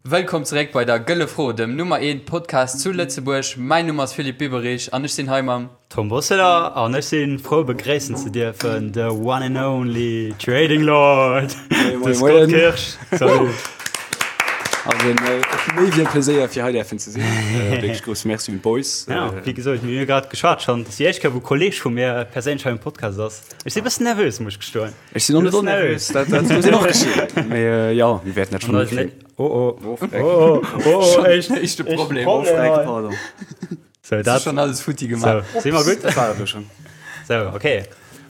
Wëllkomm zeréck bei der Gëlle Fro, dem Nummer 1 Podcast zu Lëtzebuerg. Mäin Numm ass Philippe Biberich an ech sinn hei mam. Tom Bosseler an ech sinn frou begréissen ze dierfen the one and only Trading Lord, de Scott Kirsch. Salut. Also méi wéi e Pleséier fir hei däerfen ze sinn. Wierklech grousse Merci un d'Boys. Ja, wéi gesot, mir hu grad geschwat schonn, dat ass déi éischt Kéier wou e Kolleeg vu mir perséinlech hei um Podcast ass. Ech si bëssen nervös, muss ech gestoen. Ech sinn och net onnervös, dat dat muss een och geschéien. Mee jo, mir wäerten dat schonn hikréien. Oh oh, oh oh, oh oh, éischt éischte Problem. Oh Freck, pardon. So, dat schon alles futti gemaach. So, si mer gutt? Dat war et elo schonn. So, okay.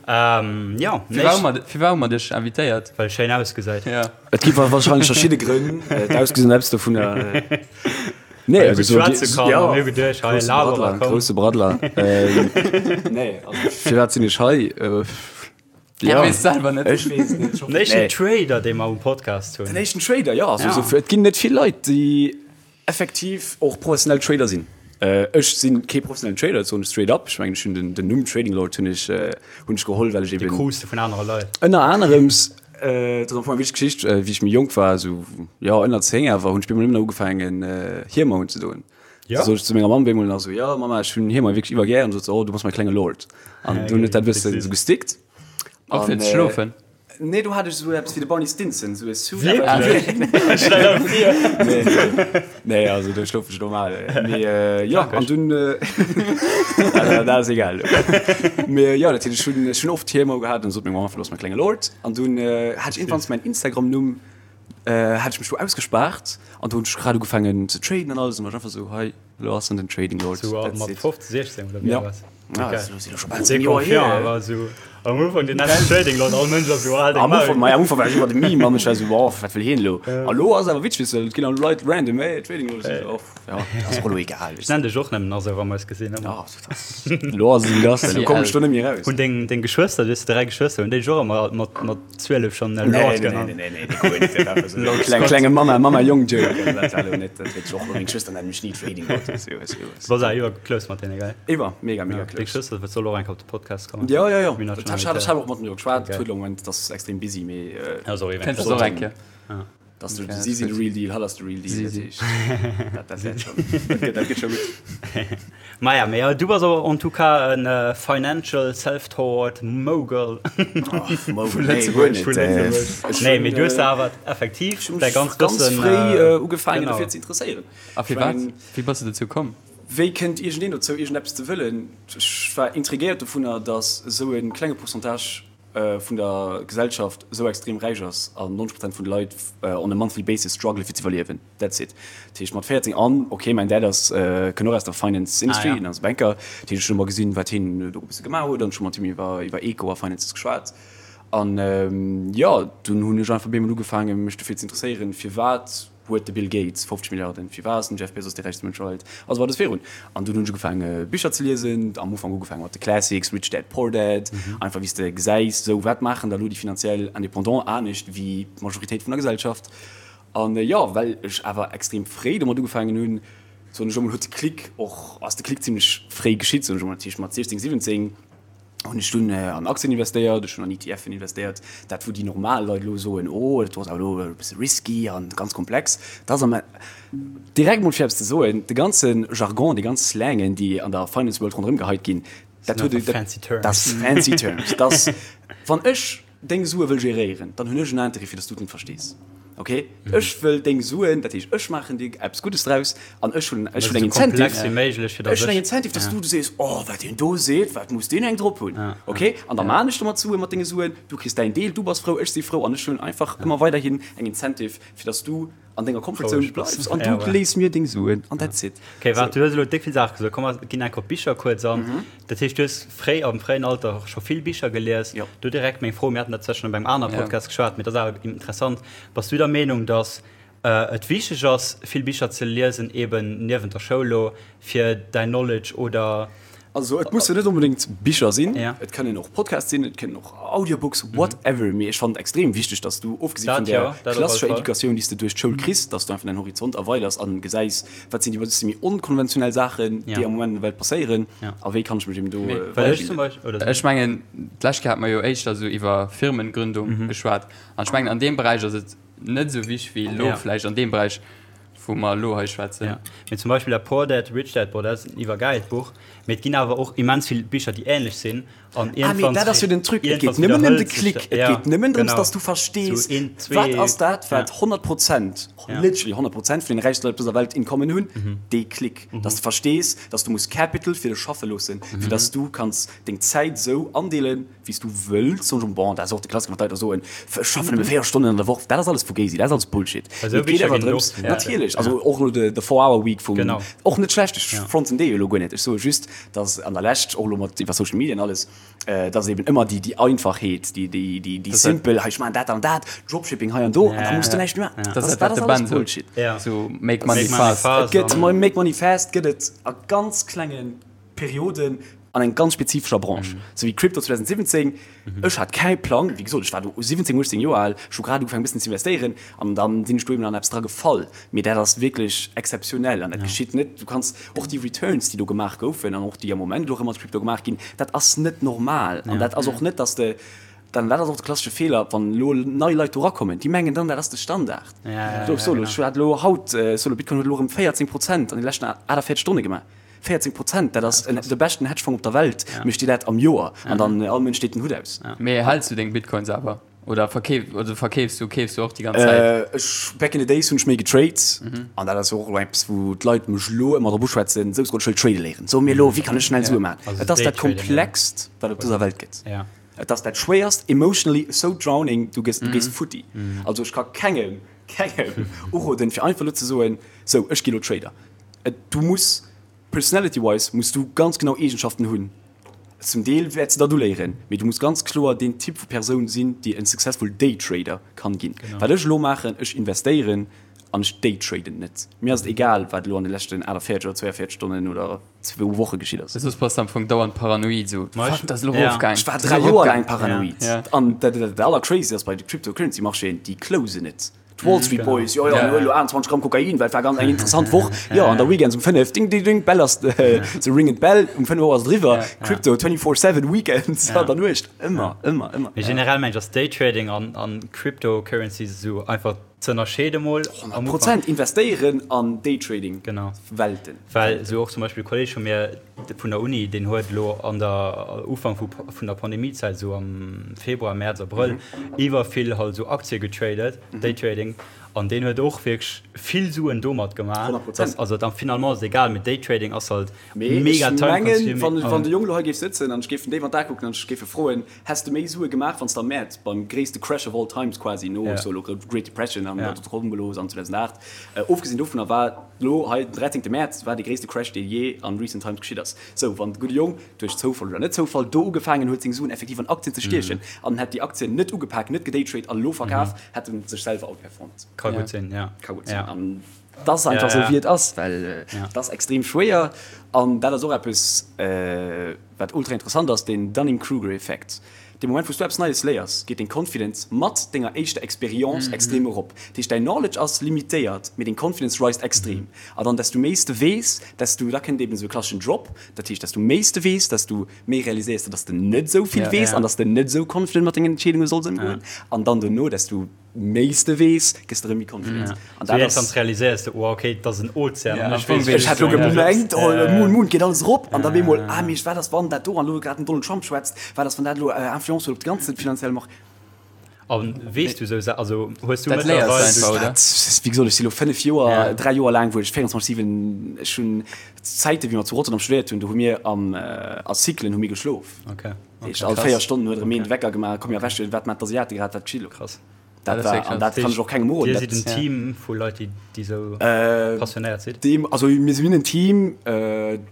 Ähm, jo, Firwat hu mer, firwat hu mer dech invitéiert? Well schéin ausgesäit. Ja. Et gi wahrscheinlech verschidde Grënn. D'Ausgesinn ass eppes dovunner. Nee, also so, schwätze kann, ja, mir geduecht, hei, grousse Laberer, Braddler, komm. grousse Braddler. Ähm, nee, also, firwat sinn ech hei? Äh, Ja. Weess selwer net. Ech weess net. Den éischten Trader, dee mer um Podcast hunn. Den éischten Trader, ja. Also, Ja. So, et ginn net vill Leit, déi effektiv och professionell Trader sinn. Äh, ech sinn kee professionellen Trader, dat soen ech straight up. Ech mengen, ech hunn den, den Numm Trading Lord hunn ech, äh, hunn ech geholl, well ech Dee eben krus de vun anere Leit. ënner anerems, äh, dat ass am Fong eng wichteg Geschicht, äh, wéi ech méi jonk war, esou, jo, ënner 10 awer, hunn ech bemol nëmmen ugefaangen, äh, Hiemer unzedoen. Ja. Da sot ech zu menger Mamm bemol nach esou, jo, Mama, ech hunn Hiemer wierklech iwwer gär. An sot se, oh, du bass mäi klenge Lord. An dunn huet dat e bëssen esou gestickt. Och fir An, ze äh, schlofen? Nee, do hat ech esou eppes wéi de Barney Stinson, esou e Suit. Wierklech? Stell der vir. Nee, nee, nee, also do schlof ech normal. Mee äh, ja, an dunn äh, also, dat ass egal. Mee ja, dat heescht, ech hunn, ech hunn oft Hiemer gehat an sot meng Mamm einfach, du bass mäi klenge Lord. An dunn äh, hat ech iergendwanns mäin Instagram-Numm, äh, hat ech mech do ausgespaart an do hunn ech grad ugefaangen ze traden an alles an war ech einfach esou, hei, Lo ass en den Trading Lord. Sou That's mat it. 15, 16 oder wéi Ja. war es? Ah, Okay. das ass jo scho bal Sehr 10 Joer confiant, hier. awer sou am Ufank den nennen Trading Lord, all Mënsch ass sou al deng Am Ufank, Maul. ma am Ufank war ech iwwer de Meme an ech war sou, boah, wat wëll hien elo? A lo ass awer witzeg, weess de, et ginn elo Leit random, hey, Trading Lord, ech sou, oh, ja, ass och elo egal, Ech weess de. nennen dech och nëmmen nach sou, wa mer eis gesinn ëmmer. Ja, dat ass, elo ass et ewéi et ass, elo kommen ech do net méi eraus. Hunn deng, deng Geschwëster, du hues 3 Geschwëster, hunn déi dech och ëmmer mat, mat 12 schonn Nee, Lord nee, nee, genannt? nee, nee, nee, guer net, dat war einfach sou e kleng, klenge Mamma, Mamma-Jong-Joke, also dat war elo net, dat huet sech och, meng Schwëster nennen mech ni Trading Lord, weess de, weess de, weess de. Du bass awer iwwer close mat deene, gell? Iwwer, mega, mega Deng close. Schwëster soll och eng Kéier op de Podcast kommen. Ja, ja, ja. Mir Dat hat ech och mat mir geschwat. Huet elo am Moment, ass extrem busy, mee. Ja, sorry, Kenns du och eng Kéier? Dass du, si sinn de real deal, hatt ass de real deal. Si si. Dat, dat wäert schon, dat gëtt, dat gëtt scho gutt. Maja, mee du bass awer en tout cas en financial self-taught mogul. Mogul, nee, guer net. Vu Lëtzebuerg. Nee, mee du hues awer effektiv däi ganzt Ganz Wëssen. fréi ugefaangen dofir ze interesséieren. A firwat? Wéi bass du dozou komm? Wéi kënnt iergendeen dozou, iergendeppes ze wëllen? Ech war intrigéiert dovunner, datt esou e klenge Pourcentage vun der Gesellschaft esou extrem räich ass an 90 Prozent vun de Leit on a monthly basis strugglen, fir ze iwwerliewen. That's it. Dat heescht, mat 14 an, ok, mäin Dad ass, kënnt och aus der Finance Industry, hien ass Banker, dat heescht, ech hunn ëmmer gesinn, wat hien do e bësse gemaach huet an ech hu mat him iwwer, iwwer Eco a Finances geschwat. An jo, dunn hunn ech einfach op eemol ugefaangen, mech dofir ze interesséieren, firwat Huet de Bill Gates 50 Milliarden? Firwat ass den Jeff Bezos dee räichste Mënsch der Welt? A sou weider virun. An dunn hunn ech ugefaange Bicher ze liesen, am Ufank ugefaange mat de Classics, Rich Dad Poor Dad, einfach wéi s de gesäis, sou wat maachen da lo déi finanziell Indépendants anescht wéi d'Majoritéit vun der Gesellschaft. An jo, well ech awer extrem fréi domat ugefaangen hunn, soen ech emol, huet de Klick och, ass de Klick zimmlech fréi geschitt, soen ech emol, dat heescht mat 16, 17, hunn ech dunn an Aktien investéiert, ech hunn an ETFen investéiert, dat wou déi normal Leit elo soen, oh dat ass awer elo e bësse risky an ganz komplex. Dat ass am direkt mol fir eppes ze soen, de ganze Jargon, déi ganz Slangen, déi an der Finance World ronderëm geheit ginn, dat huet, dat ass fancy terms, dat ass wann ech deng Sue wëll geréieren, dann hunn ech en Interêt fir dass du et net verstees. Ok, ech wëll deng Suen, dat heescht ech maachen dir eppes Guddes draus an ech hunn ech hunn eng Incentive, ech hunn eng Incentive, dass du sees, oh wat deen do seet, wat muss deen eng drop hunn. Ok, an da maan ech domat Sue mat denge Suen, du kriss däin Deel, du bass frou, ech si frou an ech hunn einfach ëmmer weiderhin eng Incentive fir dass du an denger Comfort Zone bleifs an du léiss mir deng Suen an that's it. Ok, waart, du hues elo déck vill Saache gesot, komm mer ginn enk op d'Bicher kuerz an. Dat heescht, du hues fréi, am fréien Alter scho vill Bicher gelies. Jo. Do direkt meng Fro, mir haten dat zwar schonn op engem anere Podcast geschwat, mee dat ass awer interessant, Bass du der Meenung, datt et wichteg ass, vill Bicher ze liesen, eben niewent der Schoul elo, fir däin Knowledge oder. Also et mussen net onbedéngt Bicher sinn, Ja. et kënnen och Podcasts sinn, et kënnen och Audiobooks, whatever, mee ech fannen et extrem wichteg, dass du, ofgesi vun Dat där jo, dat op alle klassescher Fall. Educatioun, déi s de duerch d'Schoul kriss, dass du einfach däin Horizont erweiders an gesäis, wat sinn déi bësse méi onkonventionell Saachen, déi am Moment an der Welt passéieren a wéi kann ech mech eben do weiderbilden. Ech mengen, d'lescht Kéier hate mer jo éischter esou iwwer Firmengründung geschwat an ech mengen, an deem Beräich ass et net esou wichteg wéi elo vläicht an deem Beräich. wou mer elo hei schwätzen. Ja. Mee zum Beispill dat Poor Dad, Rich Dad boah, dat ass en iwwergäilt Buch. Mee et ginn awer och immens vill Bicher, déi änlech sinn. An Ah, mee dat ass jo den Truc, et geet nëmmen ëm de Klick, et geet nëmmen drëms, dass du verstees, wat ass dat, wat 100 Prozent, literally 100 Prozent vun den räichste Leit op dëser Welt in common hunn, dee Klick, dass du verstees, dass du muss Capital fir dech schaffe loossen, fir dass du kanns deng Zäit esou andeelen, wéi s du wëlls. Soen ech, bon, dat ass och de Klassiker, wann d'Leit da soen, ech schaffen nëmme 4 Stonnen an der Woch, dat ass alles Fugazi, dat ass alles Bullshit. Mee et geet awer drëms, natierlech, also och elo de Four Hour Week vum, och net schlecht, ech fronten dee jo elo guer net, ech soe just, dass an der Lescht, och elo mat iwwer Social Media an alles, dass eben ëmmer déi, déi Einfachheet, déi, déi, déi, déi simpel, hei ech maachen dat an dat, Dropshipping hei an do, an da muss du näischt méi maachen. Dat ass dat, wat de Ben sot, sou make money fast. Et gëtt, make money fast gëtt et a ganz klenge Perioden an eng ganz spezifescher Branche, sou wéi Crypto 2017. Ech hat kei Plang, wéi gesot, ech war do 17, 18 Joer al, ech hu grad ugefaangen e bëssen ze investéieren an dann sinn ech do eben an eppes dra gefall. Mee dat ass wierklech exzeptionell an dat geschitt net. Du kanns och déi Returns, déi do gemaach goufen an och déi am Moment elo erëm mat Crypto gemaach ginn, dat ass net normal an dat ass och net, dass de dann, dat ass och de klassesche Feeler, wann elo nei Leit do erakommen, déi mengen dann, dat ass de Standard. Solo, ech hat elo haut, solo, Bitcoin huet elo erëm 14 Prozent an de leschten 48 Stonne gemaach. 14 Prozent, dat ass de beschten Hedgefonds op der Welt, mécht dir dat am Joer an dann all Mënsch deet den Hutt aus. Mee häls du deng Bitcoins awer oder verkeef oder verkeefs du, keefs du och déi ganz Zäit? Ech, back in the days hunn ech méi getrade an dat ass jo och elo eppes wou d'Leit mech elo ëmmer drop uschwätzen, sou ech wëll trade léieren, so mir elo, wéi kann ech schnell Sue maachen? Et ass dat komplext wat op dëser Welt gëtt. Et ass dat schwéierst, emotionally so drowning, du gëss, du gees futti. Also ech ka kengem, kengem uroden fir einfach elo ze soen, sou ech gi elo Trader. Du muss personality wise muss du ganz genau Eegenschaften hunn. Zum Deel wäerts de dat uléieren, mee du muss ganz kloer deen Typ vu Persoun sinn, déi en successful Daytrader kann ginn. Wat ech elo maachen, ech investéieren an ech daytraden net. Mir ass et egal, wat elo an de leschten 48 oder 42 Stonnen oder zwou Woche geschitt ass. Soss bass de am Fong dauernd paranoid, sou, fuck, dat ass elo erofgaang. Ech war 3 Joer laang paranoid. An dat allercrazy ass bei de Cryptocurrency-Marchéen, déi closen net. D'Wall Street Boys, jo jo, mir huelen elo 28 Gramm Kokain, well et war ganz eng interessant Woch. Jo, an der Weekends um 5, ding ding ding, d'Bell ass, se ringen d'Bell, um 5 Auer ass et eriwwer. Crypto 24 seven, Weekends an der Nuecht, ëmmer, ëmmer, ëmmer. Mee generell mengen ech ass Daytrading an an Cryptocurrencies esou einfach ze ënnerscheede mol am Ufank. Prozent investéieren an Daytrading, Genau. Welten. Well esou och zum Beispill e Kolleg vu mir vun der Uni, deen huet elo an der Ufank vu vun der Pandemiezäit, esou am Februar, Mäerz, Abrëll, iwwer vill halt esou Aktie getradet, Daytrading, an deen huet och wierklech vill Suen domat gemaach. 100%. Also dann finalement ass et egal, mee Daytrading ass halt Mee mega ech time mengen, consuming. wann, wann de Jong elo hei géif sëtzen an ech géif en déif an d'Ae kucken an ech géif e froen, Häss de méi Sue gemaach, wann s de am Mäerz beim gréisste Crash of all times quasi, no sou elo Great Depression an der Dotcom-Blos an 2008, ofgesinn dovunner war elo hei den 13 Mäerz war dee gréisste Crash dee jee an recent times geschitt ass. Sou wann de gudde Jong duerch Zoufall oder net Zoufall do ugefaangen huet seng Suen effektiv an Aktien ze stiechen an hätt déi Aktien net ugepak, net gedaytrade an elo verkaf, hätt en sech selwer outperformed. Ka gutt sinn, ja. Ka gutt sinn. An et ass einfach sou wéi et ass, well et ass extrem schwéier an dat ass och eppes, Wat ultra interessant ass, den Dunning-Kruger-Effekt. Dee Moment wou s du eppes Neies léiers, geet deng Confidence mat denger éischter Experience extrem erop. Dat heescht, däin Knowledge ass limitéiert, mee deng Confidence rised extrem. A dann, desto méi s de weess, desto, da kënnt eben esou e klasseschen Drop, dat heescht, desto méi s de weess, desto méi realiséiers de, dass de net esou vill weess an dass de net esou confident mat dengen Entscheedunge solls ëmgoen. An dann dono, desto méi s de weess, gëss de erëm méi confident. An dat ass. Iergendwann realiséiers de, oh okay, et ass en Ozean an ech weess Ech hat lo gemengt, oh Moon, Moon, geet alles erop an da bemol, ah mee wat ass wann dat do an elo grad den Donald Trump schwätzt, wat ass wann dat elo Influence huet op de ganze finanzielle Marché. A weess du esou Sa, also hues du Dat léiers du einfach, oder? Dat, wéi gesot, ech si lo 5 Joer, 3 Joer laang, wou ech 24, 7, ech hunn Zäiten, wéi mer zu Rotterdam studéiert hunn, do hu mir am, a Cyclen hu mir geschlof. Okay. Heescht, all 4 Stonnen huet erëm een de Wecker gemaach, komm mir erwächen, wat maachen d'Asiate grad, wat geschitt elo? Krass. Dat war, an dat kann ech och kengem roden. Dir sidd en Team vu Leit, déi, déi esou passionéiert sidd? Deem, also mir sinn en Team,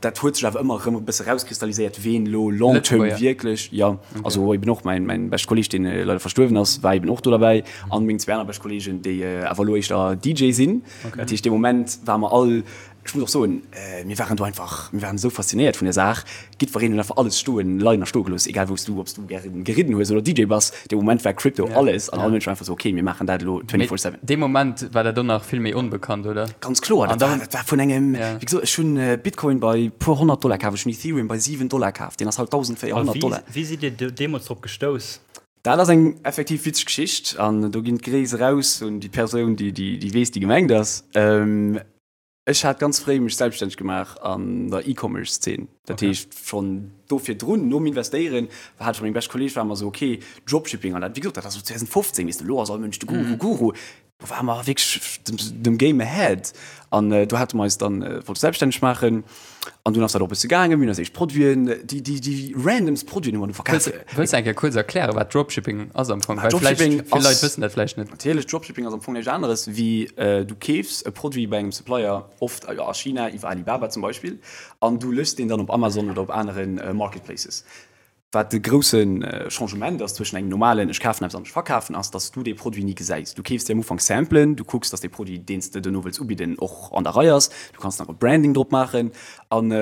dat huet sech awer ëmmer erëm e bësse rauskristalliséiert, ween elo long term wierklech, jo, also eben och mäin, mäin beschte Kolleeg, deen leider verstuerwen ass, war eben och do derbäi, an meng zwee aner bescht Kolleegen, déi awer elo éischter DJ sinn. Dat heescht, dee Moment ware mer all Ech muss och soen, mir waren do einfach, mir waren esou faszinéiert vun der Saach. Jiddwereen huet einfach alles stoen, leien a stoe gelooss, egal wou s du, ob s du gären geridden hues oder DJ bass. Dee Moment war Crypto alles an all Mënsch war einfach esou, okay, mir maachen dat elo 24 seven. Dee Moment war dat och nach vill méi onbekannt, oder? Ganz kloer, dat war, dat war vun engem, wéi gesot, ech hunn Bitcoin bei puer 100 Dollar kaf, ech hunn Ethereum bei 7 Dollar kaf, deen ass haut 1.400 Dollar. A wéi sidd Dir deemools drop gestouss? Dat ass eng effektiv witzeg Geschicht an do ginn d'Gréiss eraus un déi Persoun, déi déi weess, déi gemengt ass. Ech hat ganz fréi mech selbststänneg gemaach an der E-Commerce-Zeen. Dat heescht schonn do virdrun, nom Investéieren, hat ech mat mengem beschte Kolleeg, ware mer esou, ok, Dropshipping an dat, wéi gesot, dat ass esou 2015, weess de, elo ass all Mënsch de Guru, Guru. Do ware mer wierklech dem Game ahead an do hate mer eis dann, wollte selbststänneg maachen an dunn ass dat och e bësse gaangen. Mir hunn eis éischt Produiten, déi, déi, déi randomst Produiten hu mer du verkaf. Wëlls de eng Kéier kuerz erklären, wat Dropshipping ass am Fong? Well vläicht Dropshipping vill Leit ass. wëssen dat vläicht net. Natierlech, Dropshipping ass am Fong näischt aneres wéi du keefs e Produit bei engem Supplier, oft a China iwwer Alibaba zum Beispill, an du lëschs deen dann op Amazon oder op anere Marketplaces. Wat de grousse Changement ass zwëschen engem normalen ech kafen eppes an ech verkafen ass, dass du dee Produit ni gesäis. Du keefs dir am Ufank Samplen, du kucks, dass dee Produit, deen s de duerno wëlls ubidden, och an der Rei ass, du kanns nach e Branding drop maachen an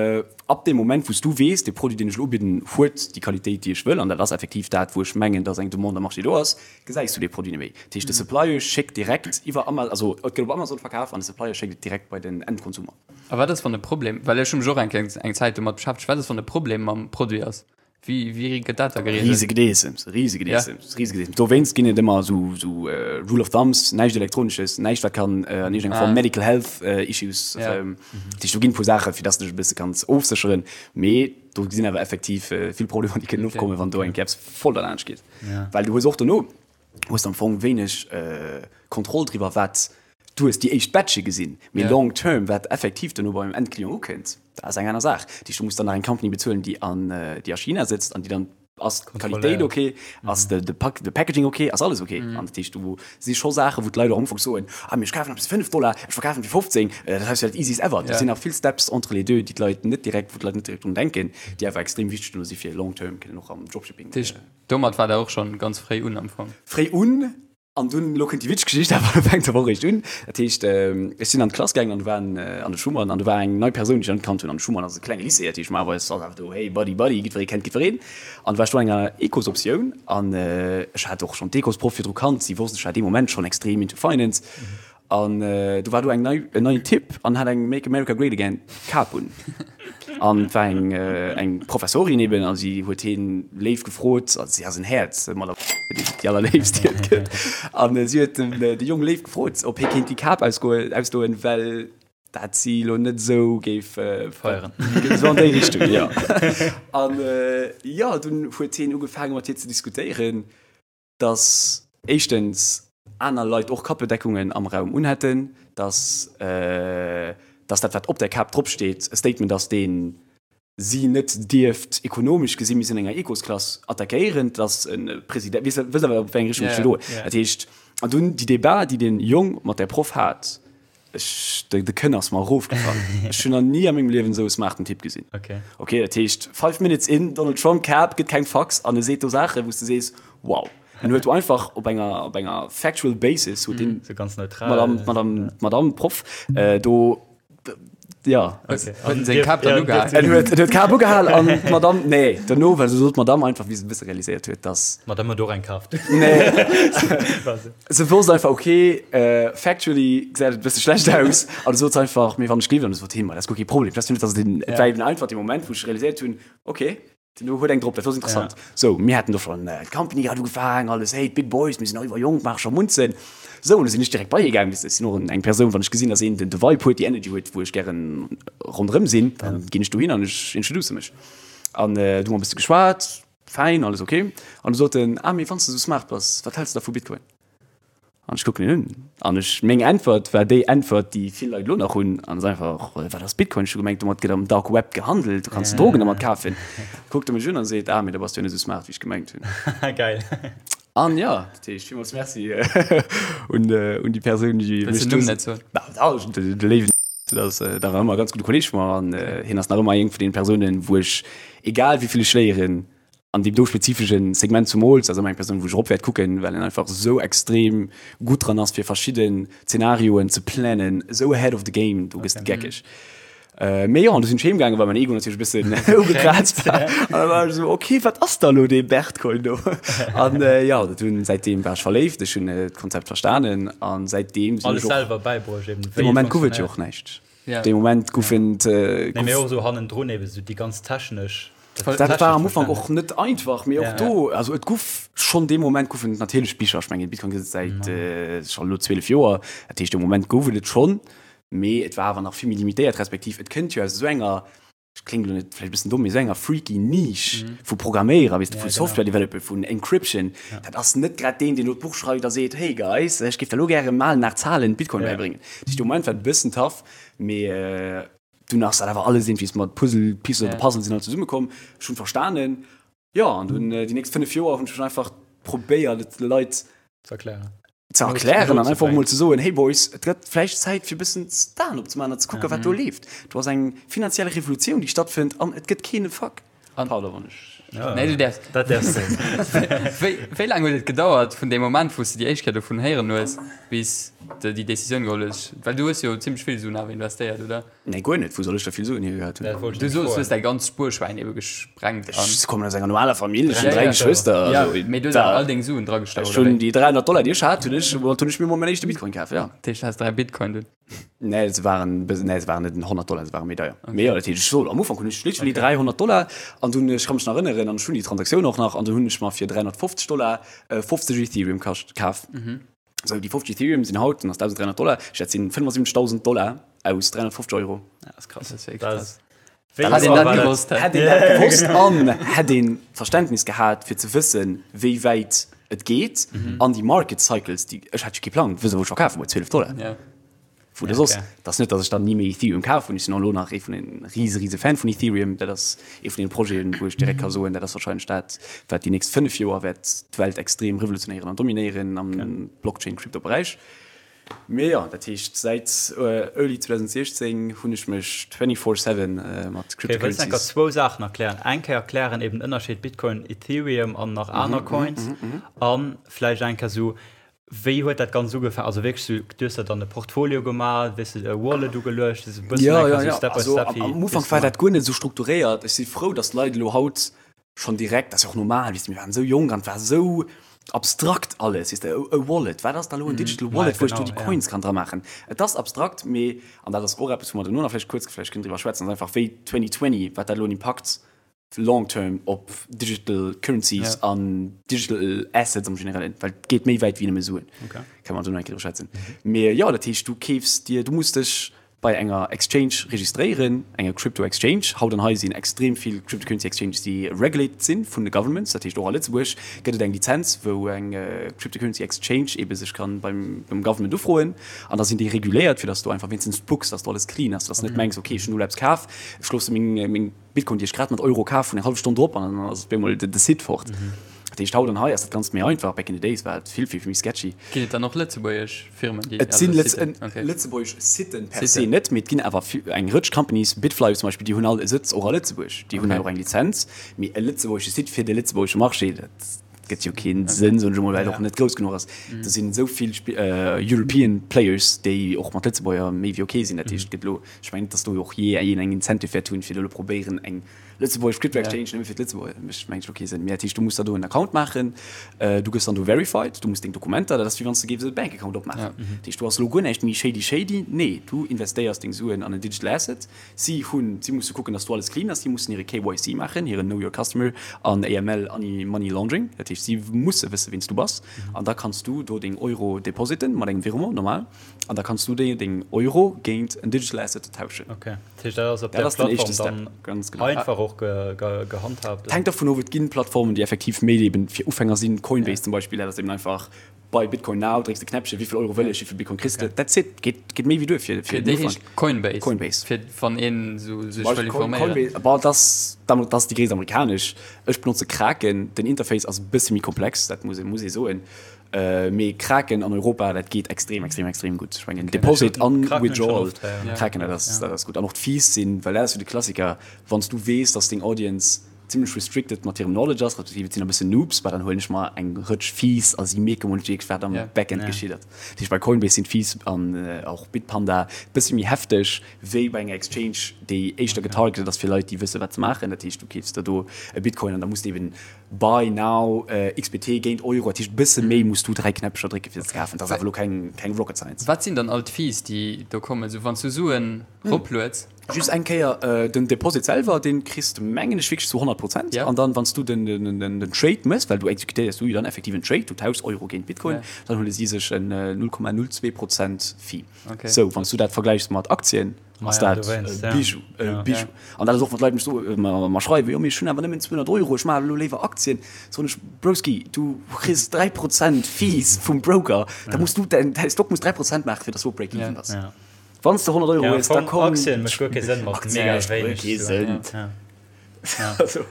ab deem Moment, wou s du weess, dee Produit, deen ech elo ubidden, huet déi Qualitéit, déi ech wëll, an dat ass effektiv dat, wou ech mengen, dass eng Demande am Marché do ass, gesäis du dee Produit net méi. Dat heescht, de Supplier schéckt direkt iwwer Ama-, also et gëtt op Amazon verkaf an de Supplier schéckt et direkt bei den Endkonsumer. A wat ass, wann e Problem, well ech hu mech och eng Kéier eng Zäit domat beschäftegt, wat ass, wann e Problem mam Produit ass? Wéi, wéi gëtt dat da gereegelt? Riese Gedeessems, riese Gedeessems, riese Gedeessems. Dowéinst ginn et ëmmer esou, esou Rule of Thumbs, näischt Elektronisches, näischt wat kann an iergendenger Form Medical Health Issues, dat heescht do ginn e puer Saache fir dass de dech e bësse kanns ofsécheren, mee do sinn awer effektiv vill Problemer déi kënnen opkommen, wann do eng Kéier eppes voll derlaanscht geet. Well du hues och dono, hues de am Fong wéineg Kontroll driwwer wat, du hues déi éischt Batche gesinn, mee long term wat effektiv dono beim Endclient ukënnt, dat ass eng aner Saach. Dat heescht, du muss dann nach eng Company bezuelen, déi an, déi a China sëtzt an déi dann, ass d'Qualitéit ok, ass de, de Pack, de Packaging ok, ass alles ok? An dat heescht, do si scho Saachen, wou d'Leit och am Ufank soen, ah mee ech kafen eppes fir 5 Dollar, ech verkafen fir 15, dat ass jo dat easiest ever. Do sinn nach vill Steps entre les deux, déi d'Leit net direkt, wou d'Leit net direkt drun denken, déi awer extrem wichteg dono si fir long term kënnen och am Dropshipping. Dat heescht, domat war der och schonn ganz fréi un am Fong? Fréi un, An dunn, elo kënnt déi witzeg Geschicht, awer fänkt awer och eréischt un. Dat heescht, ech sinn an d'Klass gaangen an do waren, an de Schuman, an do war eng nei Persoun, déi ech nach net kannt hunn. An de Schuman ass e klenge Lycée, dat heescht, normalerweis ass awer do, hey Buddy, Buddy, jiddweree kennt jiddwereen. An du war ech do an enger Ecosoptioun an ech hat och schonn d'Ecosproff virdru kannt, si wosst, ech war dee Moment schonn extrem into finance. An do war do eng nei, en neien Typ an hat eng Make America Great Again Kap un. An et war eng, eng Professorin eben a si huet hien léif gefrot, also si ass en Häerz, mat déi allerléifst déi et gëtt. An si huet den, de Jong léif gefrot, ob hie kéint déi Kap ausgoen, ausdoen, well dat si lo net esou géif feieren. Esou an déi Richtung, jo. An jo, dunn huet hien ugefaange mat hir ze diskutéieren. dass éischtens aner Leit och Kappedeckungen am Raum unhätten, dass, dass dat, wat op där Kap dropsteet, e Statement ass, dee si net dierft ekonomesch gesi mir sinn an enger Ecosklass attackéieren, dass e President, weess, wësst awer, op wéi eng Richtung ech wëll goen. Dat heescht, an dunn déi Debat, déi dee Jong mat där Proff hat, Ech, de, de Kënn ass mer erofgefall. Ech hunn nach ni a mengem Liewen esou e smarten Typ gesinn. Okay. Okay, dat heescht, five minutes in, Donald Trump Cap, gëtt keng Fax an e seet do Saachen, wou s de sees, wow. En huet do einfach op enger, op enger factual basis huet deen Sou ganz neutral. Madame, Madame, Madame Proff äh, do, ja. Okay. Huet en seng Kap dann ugehal? En huet, en huet d'Kap ugehal an d'Madame, nee, dono, well se sot d'Madame einfach, wéi se e bësse realiséiert huet, dass. D'Madame huet och eng kaaft. Nee. Se wosst einfach, ok, factually gesäit et e bësse schlecht aus. An du sot se einfach, mee wann ech gleewen, an du sot hien, ma dat ass guer kee Problem. Dat ass jo net, dass et een, et war eben einfach dee Moment, wou ech realiséiert hunn, ok, den do huet eng drop, dat ass interessant. Sou, mir haten do schonn d'Company grad ugefaangen, alles, hey, d'Big Boys, mir sinn nach iwwer jonk, maache scho Munzen. Sou, an du sinn ech direkt bei hie gaangen, weess de, ech sinn och eng Persoun, wann ech gesinn, dass een den de Vibe huet, déi Energy huet, wou ech gären ronderëm sinn, dann ginn ech dohin an ech introduce mech. An du hu mer e bësse geschwat. Fäin, alles ok. An du sot en, ah, mee wann s de sou smart bass, wat häls de da vu Bitcoin? An ech kucken en un an ech, meng Äntwert war déi Äntwert, déi vill Leit elo nach hunn, an ass einfach, wat ass Bitcoin? Ech hu gemengt, domat gëtt am Dark Web gehandelt, du kanns Drogen domat kafen. Kuckt e mech un an seet, ah, mee da bass du jo net sou smart, wéi ech gemengt hunn. Geil. An jo, dat heescht, villmools Merci un, un déi Persoun, déi Wëlls mech den Numm net soen? Na, dach, de léiwen, dat ass, dat war ëmmer e ganz gudde Kolleeg vu mer an hien ass nach ëmmer eng vun deene Persounen, wou ech, egal wéi vill ech léieren, an deem do spezifesche Segment zumools, ass ëmmer eng Persoun, wou ech erop wäert kucken, well en einfach esou extrem gutt dran ass, fir verschidden Zenarioen ze planen, esou ahead of the game, do gëss de geckeg. Mee jo, an du sinn ech heem gaangen, well mäin Ego natierlech e bëssen ugekraazt war. An da war ech esou, ok, wat ass da elo dee Bertcoin do? An jo, dat hunn, säitdeem war ech verléift, ech hunn d'Konzept verstanen an säitdeem sinn ech och. Alles selwer bäibruecht eben, wéi et funktionéiert. Dee Moment gouf et jo och näischt. Ja. Dee Moment goufen Nee, mee och esou hannendrun eben esou déi ganz technesch. Dat war am Ufank och net einfach, mee och do, also et guff schonn dee Moment goufen et natierlech Bicher. Ech mengen, Bitcoin gëtt et säit scho elo 12 Joer. Dat heescht, dee Moment gouf et et schonn. Mee et war awer nach vill méi limitéiert, respektiv et kënnt jo aus esou enger, ech kléngt elo net vläicht e bëssen domm, mee esou enger freaky Niche vu Programméierer, weess de, vu Software Developer, vun Encryption. Dat ass net grad deen, deen elo d'Buch schreift a seet, Hey guys, ech géif der elo gäre malen nach Zahlen Bitcoin bäibréngen. Dat heescht, de Moment war et e bëssen tough, mee dunn ass dat awer alles iergendwéi mat Puzzle Pieces of the Puzzle sinn all zesummekomm. Ech hunn verstanen, jo, an dunn déi nächst 5 Joer hunn ech einfach probéiert, et de Leit ze erklären. Ze erklären an einfach mol ze soen, hey Boys, et gëtt vläicht Zäit fir e bëssen d'Aen opzemaachen an ze kucken, wat do leeft. Do ass eng finanziell Revolutioun, déi stattfënnt an et gëtt keen e Fuck. Pardon, wann ech. Nee, du däerfs. Dat däerfs du. Wéi, wéi laang huet et gedauert vun deem Moment, wou s de déi éischt Kéier dovun héieren hues, bis de déi Decisioun geholl hues? Well du hues jo zimmlech vill Suen awer investéiert, oder? Nee, guer net. Wou soll ech da vill Suen hiergehat hunn? Dat wollt ech Du nämlech soos, du hues froen. däi ganzt Spuerschwäin ebe gesprengt an. Ech kommen aus enger normaler Famill, ech Ja, hunn 3 ja. Geschwëster. Ja, Also, mee du hues da, awer all deng Suen dragestach, ech oder hunn wéi? déi 300 Dollar, déi ech hat, hunn ech, woumat hunn ech mir mol mäin éischte Bitcoin kaf, ja. Dat heescht, du has 3 Bitcoin dunn? Nee, se waren, nee, se waren net 100 Dollar, se waren méi deier. Mee jo, dat heescht, ech sot, am Ufank hunn ech literally 300 Dollar an dunn, ech ka mech nach erënneren, an ech hunn déi Transaktioun och nach, an dunn hunn ech mer fir 350 Dollar 50 Ethereum kascht, kaf. Sou, déi 50 Ethereum sinn haut, dann ass 1.300 Dollar, ech dat sinn 75.000 Dollar aus 350 Euro. Ja, das ist krass. Das ist wirklich Das krass. Wéi Hätt een dat war dat? gewosst, Hätt een dat gewosst an hätt een Verständnis gehat fir ze wëssen, wéi wäit et geet an déi Market Cycles, déi, ech hat jo kee Plang, wësse wou ech verkafe muss, 12 Dollar. Ja. Wou de soss, et ass net, datt ech dann ni méi Ethereum kaf hunn, ech sinn och elo nach ee vun den rise rise Fan vun Ethereum, dat ass ee vun den Projeten, wou ech direkt ka soen, dat ass wahrscheinlech dat, wat déi nächst 5 Joer wäert d'Welt extrem revolutionéieren an dominéieren am Blockchain-Crypto-Beräich. Mee jo, dat heescht säit early 2016 hunn ech mech 24/7 mat Okay, wëlls enker Cryptocurrencies. zwou Saachen erklären? Eng Kéier erklären eben den Ënnerscheed Bitcoin, Ethereum an nach aner Coins an vläicht eng Kéier sou Wéi huet dat Ganzt ugefaangen? Also wierklech sou, du hues der dann e Portfolio gemaach, wéis de e Wallet ugeluecht, esou e bëssen Ja, einfach ja, sou ja. Step by Also Step, am, wéi am wéi Ufank s de war gemaach? dat guer net esou strukturéiert. Ech si frou, datt d'Leit elo haut schonn direkt, dat ass jo och normal, weess de, mir waren esou jonk an et war esou abstrakt alles, weess de, e Wallet, wat ass da elo en Digital Ja, Wallet, wou ech do genau, déi ja. Coins kann dra maachen? Et ass abstrakt, mee, an dat ass och eppes, wou mer duerno nach vläicht kuerz vläicht kënnen driwwer schwätzen, ass einfach wéi 2020, wat dat elo en Impakt long term op digital currencies Ja. an digital assets am generellen, well et geet méi wäit wéi nëmme Suen. Okay. Kann man do nach eng Kéier drüber schwätzen. Mee jo, dat heescht, du keefs dir, du muss dech bei enger Exchange registréieren, enger Crypto Exchange. Haut an hei sinn extrem vill Cryptocurrency Exchanges, déi regulated sinn vun de Governments. Dat heescht, och a Lëtzebuerg gëtt et eng Lizenz, wou eng Cryptocurrency Exchange ebe sech kann beim, beim Government ufroen. An da sinn déi reguléiert, fir dass du einfach wéinstens kucks, dass do alles clean ass, dass du net mengs, okay, ech hunn elo eppes kaf, ech loosse meng, meng Bitcoin, déi ech grad mat Euro kaf hunn, eng hallef Stonn drop an dann ass op eemol de Site fort. Dat heescht, haut an hei ass dat Ganzt méi einfach. Back in the days war et vill, vill méi sketchy. Ginn et dann och lëtzebuergesch Firmen, déi. Et sinn also Siten? Okay. lëtzebuergesch Siten per se Siten. net, mee et ginn awer eng Rëtsch Companies, Bitfly zum Beispill, déi hunn all e Sëtz och a Lëtzebuerg. Déi hunn Okay. och eng Lizenz. Mee e lëtzebuergesche Site fir de lëtzebuergesche Marché, dat gëtt jo kee Sënn, soen ech emol, well et och net grouss genuch ass. Do sinn esou vill European Players, déi och mat Lëtzebuerger méi wéi ok sinn. Dat heescht, et gëtt elo Ech mengen net, dass do och jee een eng Incentive wäert hunn, fir do elo probéieren, eng lëtzebuergesch Crypto Exchange nëmme fir d'Lëtzebuerger, mécht mengen ech elo kee Sënn. Mee dat heescht, du muss der do en Account maachen, du gëss dann do verified, du muss deng Dokumenter, dat ass wéi wann s de géifs e Bank Account opmaachen. Dat heescht, do ass elo guer näischt méi shady shady, nee, du investéiers deng Suen an en Digital Asset. Si hunn, si musse kucken, dass do alles clean ass, si mussen hire KYC maachen, hiren Know Your Customer an AML, Anti-Money Laundering, dat heescht, si musse wësse wien s du bass an da kanns du do deng Euro depositen mat engem Virement normal. An da kanns du déi deng Euro géint en Digital Asset tauschen. Okay, dat heescht dat ass op Dat där ass den éischte Plattform Step, dann ganz genau. einfach och ge, ge, gehandhabt. Et hänkt dervun of, et ginn Plattformen, déi effektiv méi eben fir Ufänger sinn, Coinbase zum Beispill, dat ass eben einfach buy Bitcoin now, drécks de Knäppchen, wéi vill Euro wëll ech, wéi vill Bitcoin kriss de, that's it, geet, geet méi wéi duer fir, fir Déi den Ufank. heescht Coinbase. Coinbase. Fir wann een esou sech Zum wëll Beispill Coin, informéieren. Coinbase, bon, dat ass, dat ass déi gréisst amerikanesch. Ech benotze Kraken, den Interface ass e bësse méi komplex, dat muss ee, muss ee soen. Mee Kraken an Europa, dat geet extrem, extrem, extrem gutt. Ech mengen Deposit an Withdrawal, Kraken, dat ass, dat ass gutt. An och d'Fees sinn, well dat ass jo de Klassiker, wann s du weess, dass deng Audience zimmlech restricted mat hirem Knowledge ass, respektiv et sinn e bëssen Noobs, bah dann huelen ech mer eng Rëtsch Fees a si mierke mol net wierklech, wat am Backend geschitt ass. Dat heescht, bei Coinbase sinn d'Fees an och Bitpanda e bësse méi hefteg wéi bei enger Exchange, déi éischter getargetet ass fir Leit, déi wësse wat se maachen. Dat heescht, du keefs der do e Bitcoin an da muss de eben Buy now XBT géint Euro, dat heescht e bësse méi muss du 3 Knäppcher drécke fir se ze kafen. Dat ass awer elo keng keng Rocket Science. Wat sinn dann all d'Fees déi do kommen? Sou wann s du Suen roplueds? Just eng Kéier, den Deposit selwer, dee kriss de mengen ech wierklech zu 100 Prozent. An dann, wann s du den, den, den, den Trade méchs, well du exekutéiers du jo dann effektiv en Trade, du tauschs Euro géint Bitcoin, dann huele si sech en 0,02 Prozent Fee. Sou, wann s du dat vergläichs mat Aktien, ass dat e Bijou, e Bijou. An dat ass och, wat d'Leit mech soen, mer schreiwen, jo mee ech hunn awer nëmmen 200 Euro, ech maachen elo léiwer Aktien. Soen ech, Broski, du kriss 3 Prozent Fees vum Broker, da muss du, däin Stock muss 3 Prozent maachen, fir dass du op Break-even bass. Wann s de 100 Euro hues, da komm. Aktien mécht guer kee Sënn mat mega wéineg Suen. Also,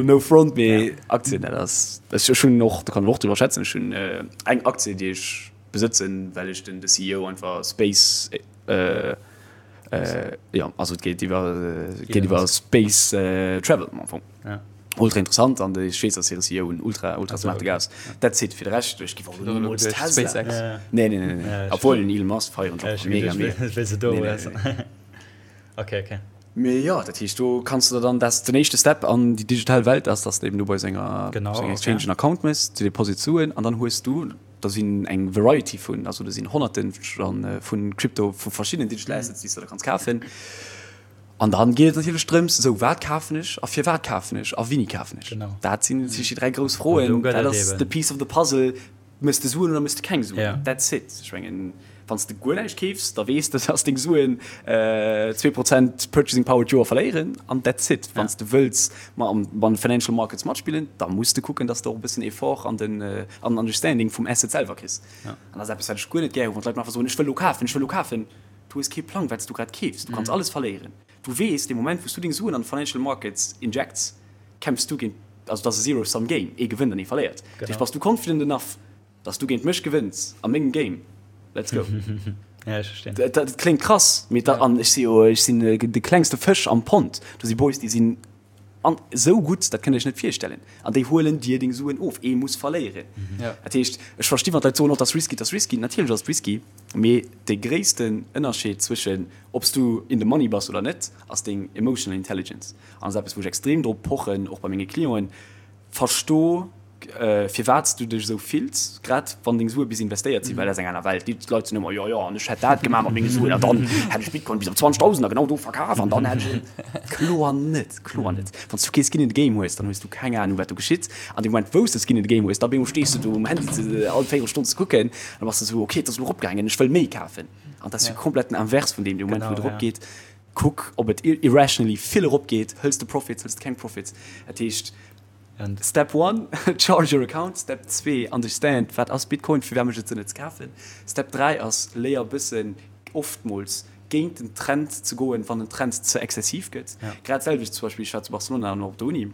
no front, mee Aktien, dat ass, ech hunn och, do kann ech och driwwer schwätzen, ech hunn eng Aktie, déi ech besëtzen, well ech den CEO einfach Space, jo, also et geet iwwer, et geet iwwer Space Travel am Fong. Ultra interessant an ech weess, dass hire CEO en ultra, ultra smarte Gars ass. That's it. Fir de Rescht, ech giff och elo nimools Tesla. SpaceX. Nee, nee, nee, nee. Obwuel den Elon Musk feieren ech och mega, mega. Nee, nee, nee. Okay, okay. Mee jo, dat heescht, do kanns de der dann, dat ass den éischte Step an déi digital Welt ass, dass de eben do bei senger, Genau, senger okay. Exchange en Account méchs, du deposit Suen an dann hues du, da sinn eng Variety vun, also do sinn Honnerten vu Crypto, vu verschiddenen Digital Assets, déi s de da kanns kafen. An dann geet et natierlech drëms, esou wat kafen ech a firwat kafen ech a wéini kafen ech? Genau. Dat sinn natierlech déi 3 grouss An do Froen. gëtt Dat et ass eben. the piece of the puzzle. Méchs de Suen oder méchs de keng Suen? Ja. That's it. Ech mengen, wann s de guer näischt keefs, da weess de, dass deng Suen 2 Prozent Purchasing Power d'Joer verléieren an that's it. Wann s de wëlls ma an de Financial Markets matspillen, da muss de kucken, dass de och e bëssen Effort an den an den Understanding vum Asset selwer kriss. Ja. An dat ass eppes, wat ech guer net gär hu, wann d'Leit mer einfach soen, ech wëll elo kafen, ech wëll elo kafen. Du hues kee Plang, wat s du grad keefs. Du kanns alles verléieren. Du weess, dee Moment, wou s du deng Suen an d'Financial Markets injects, kämpfs du géint, also et ass e Zero-Sum Game, ee gewënnt an ee verléiert. Dat heescht, bass du confident enough, dass du géint mech gewënns a mengem Game, let's go. Ja, ech verstinn. Dat kléngt krass, mee dat, an ech si jo, ech sinn de klengste Fësch am Pond. Do si Boys, déi sinn An esou gutt, dat kënnt Dir Iech net virstellen. An déi huelen dir deng Suen of. Ee muss verléieren. Dat heescht, ech versti wann d'Leit soen, oh, dat ass risky, dat ass risky. Natierlech ass et risky, mee de gréissten Ënnerscheed zwëschen ob s du in the money bass oder net, ass deng emotional intelligence. An dat ass eppes, wou ech extrem drop pochen, och bei menge Clienten, Versto firwat s du dech esou fills, grad wann deng Sue bis investéiert sinn, well dat ass eng aner Welt. Déi Leit sinn ëmmer, jo jo, an ech hätt dat gemaach mat menge Suen an dann hätt ech Bitcoin bis op 20.000 a genau do verkaf an dann hätt ech. Kloer net, kloer net. Wann s du kee Skin in the Game hues, dann hues du keng Anung, wat do geschitt. An deem Moment, wou s de Skin in the Game hues, da op eemol stees du do um Handy ze all véierel Stonn ze kucken an da bass de esou, okay, et ass elo eropgaangen, ech wëll méi kafen. An dat ass jo komplett den Invers vun deem, dee Moment, wou et eropgeet, kuck, ob et irrationally vill eropgeet, hëls de Profits, hëls de keng Profits. Dat heescht, Step one, charge your account. Step 2, understand, wat ass Bitcoin, firwat mécht et Sënn et ze kafen. Step 3 ass, léier e bëssen oftmools géint den Trend ze goen, wann den Trend ze exzessiv gëtt. Grad d'selwecht zum Beispill, ech war zu Barcelona an och op der Uni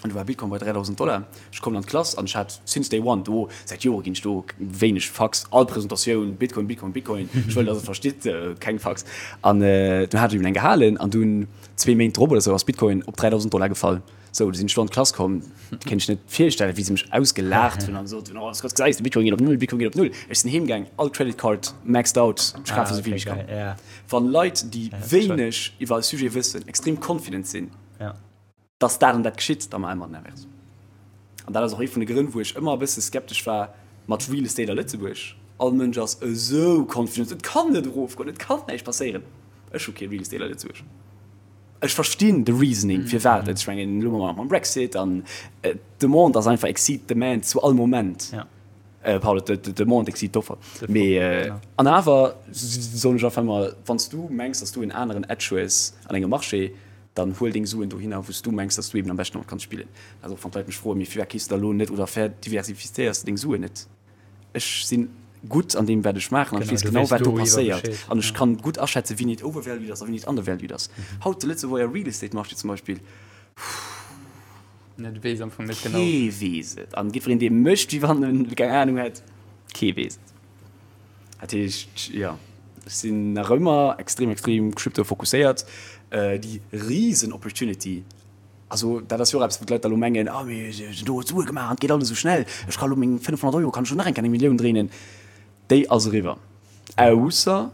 an do war Bitcoin bei 3.000 Dollar. Ech kommen an d'Klass an ech hat since day one do, säit Jore ginn ech do wéineg Fucks, all Presentatioun Bitcoin, Bitcoin, Bitcoin, ech wëll, datt et verstitt, keng Fucks. An dunn hat ech eben eng gehalen an dunn zwee Méint drop oder sou ass Bitcoin op 3.000 Dollar gefall. Sou, du sinn ech do an d'Klass komm, kéint ech net virstellen, wéi se mech ausgelaacht hunn an gesot hunn, oh, Scott, gesäis de, Bitcoin geet op null, Bitcoin geet op null. Ech sinn heem gaang, all Credit Card maxed out, ech kafe sou vill wéi ech kann. Wann Leit, déi wéineg iwwer e Sujet wëssen, extrem confident sinn, dass dat an dat geschitt, da maache mer den Inverse. An dat ass och ee vun de Grënn, wou ech ëmmer e bësse skeptesch war mat Real Estate a Lëtzebuerg. All Mënsch ass esou confident, et kann net erofgoen, et kann näischt passéieren. Ech hu kee Real Estate a Lëtzebuerg. Ech verstinn de Reasoning firwat et, ech mengen elo mam Brexit an d'Demande ass einfach exceed demand zu all Moment. Pardon, d'Demande exceed d'Offer. Mee an awer soen ech einfach ëmmer, wann s du mengs, datt s du en aneren Edge hues an engem Marché, dann huel deng Suen dohinner, wou s du mengs, datt s du eben am beschten domat kanns spillen. Also och wann d'Leit mech froen, mee firwat keefs de da elo net oder verdiversifizéiers de deng Suen net? Ech sinn gutt an deem wat ech maachen an ech weess genau wat do passéiert an ech kann gutt aschätzen wéini et overvalued ass a wéini et undervalued ass. Haut de Lëtzebuerger Real Estate Marché zum Beispill, kee weess et an jiddwereen dee mécht wéi wann en keng Anung hätt, kee weess et. Dat heescht jo, ech sinn nach ëmmer extrem extrem crypto fokusséiert. Déi risen Opportunity Also dat ass jo och eppes, wou d'Leit da lo mengen, ah mee do huet Sue gemaach an et geet alles esou schnell, ech ka lo meng 500 Euro kann ech lo nach eng Kéier eng Millioun dréinen. Déi ass eriwwer. Ausser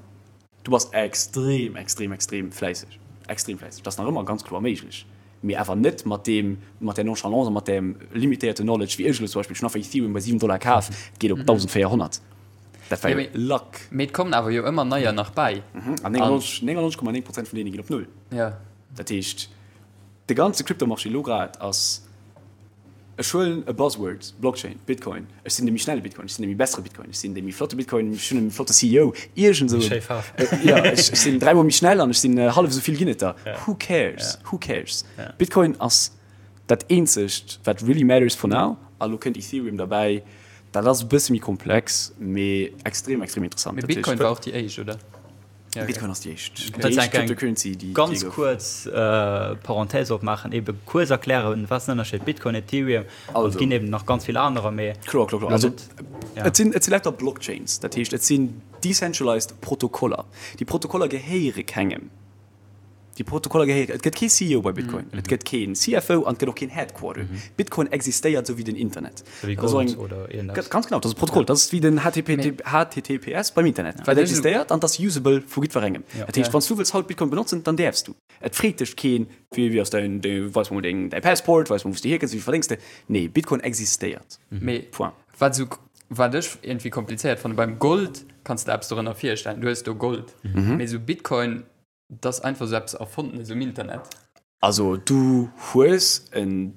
du bass extrem, extrem, extrem fläisseg. Extrem fläisseg. Dat ass nach ëmmer ganz kloer méiglech, mee awer net mat deem, mat där Nonchalance a mat deem limitéierte Knowledge wéi ech elo zum Beispill. Ech hunn einfach Ethereum bei 7 Dollar kaf, et geet op 1.400. Dat war jo Luck. Mee et kommen awer jo ëmmer neier nach bäi. An 99,9 Prozent vun deene ginn op Null. Dat heescht, de ganze Crypto-Marché elo grad ass, ech huelen e Buzzword, Blockchain, Bitcoin, ech sinn de méi schnelle Bitcoin, ech sinn de méi bessere Bitcoin, ech sinn de méi flotte Bitcoin, ech hunn e méi flotte CEO, iergend esou. Schéi Faarf. Jo, ech sinn dräimol méi schnell an ech sinn hallef esou vill ginn et der. Who cares? Who cares? Bitcoin ass dat eenzegt, wat really matters for now. A lo kënnt Ethereum derbäi. Dat ass e bësse méi komplex, mee extrem, extrem interessant. Mee Bitcoin war och déi éischt, oder? Ja, okay. Bitcoin ass déi éischt. Okay. Déi éischt Cryptocurrency, déi Ganz gouf. kuerz äh, Parenthèse opmaachen, ebe kuerz erklären, wat ass den Ënnerscheed Bitcoin, Ethereum, also, et ginn eben nach ganz vill anerer, mee Kloer, kloer, kloer. Also, ja. et sinn, et si lauter Blockchains, dat heescht, et sinn decentralized Protokoller. Déi Protokoller gehéiere kengem. Déi Protokoller gehéieren, et gëtt kee CEO bei Bitcoin, et gëtt keen CFO an et gëtt och keen Headquarter. Bitcoin existéiert esou wéi den Internet. Esou wéi Gold oder iergendeppes. Ganz genau, dat ass e Protokoll, dat ass wéi den HTTPS beim Internet. Et existéiert an et ass usable vu jiddwerengem. Dat heescht, wann s du wëlls haut Bitcoin benotzen, dann däerfs du. Et freet dech keen, wéi wéi ass däin, weis mer mol deng, däi Passport, weis mer wou s du hierkënns, wéi vill verdéngs de. Nee, Bitcoin existéiert. Point. Wat esou, wat ech iergendwéi komplizéiert fannen, beim Gold kanns de eppes dorënner virstellen, du hues do Gold, mee esou Bitcoin, 't ass einfach sou eppes Erfondenes um Internet. Also du hues en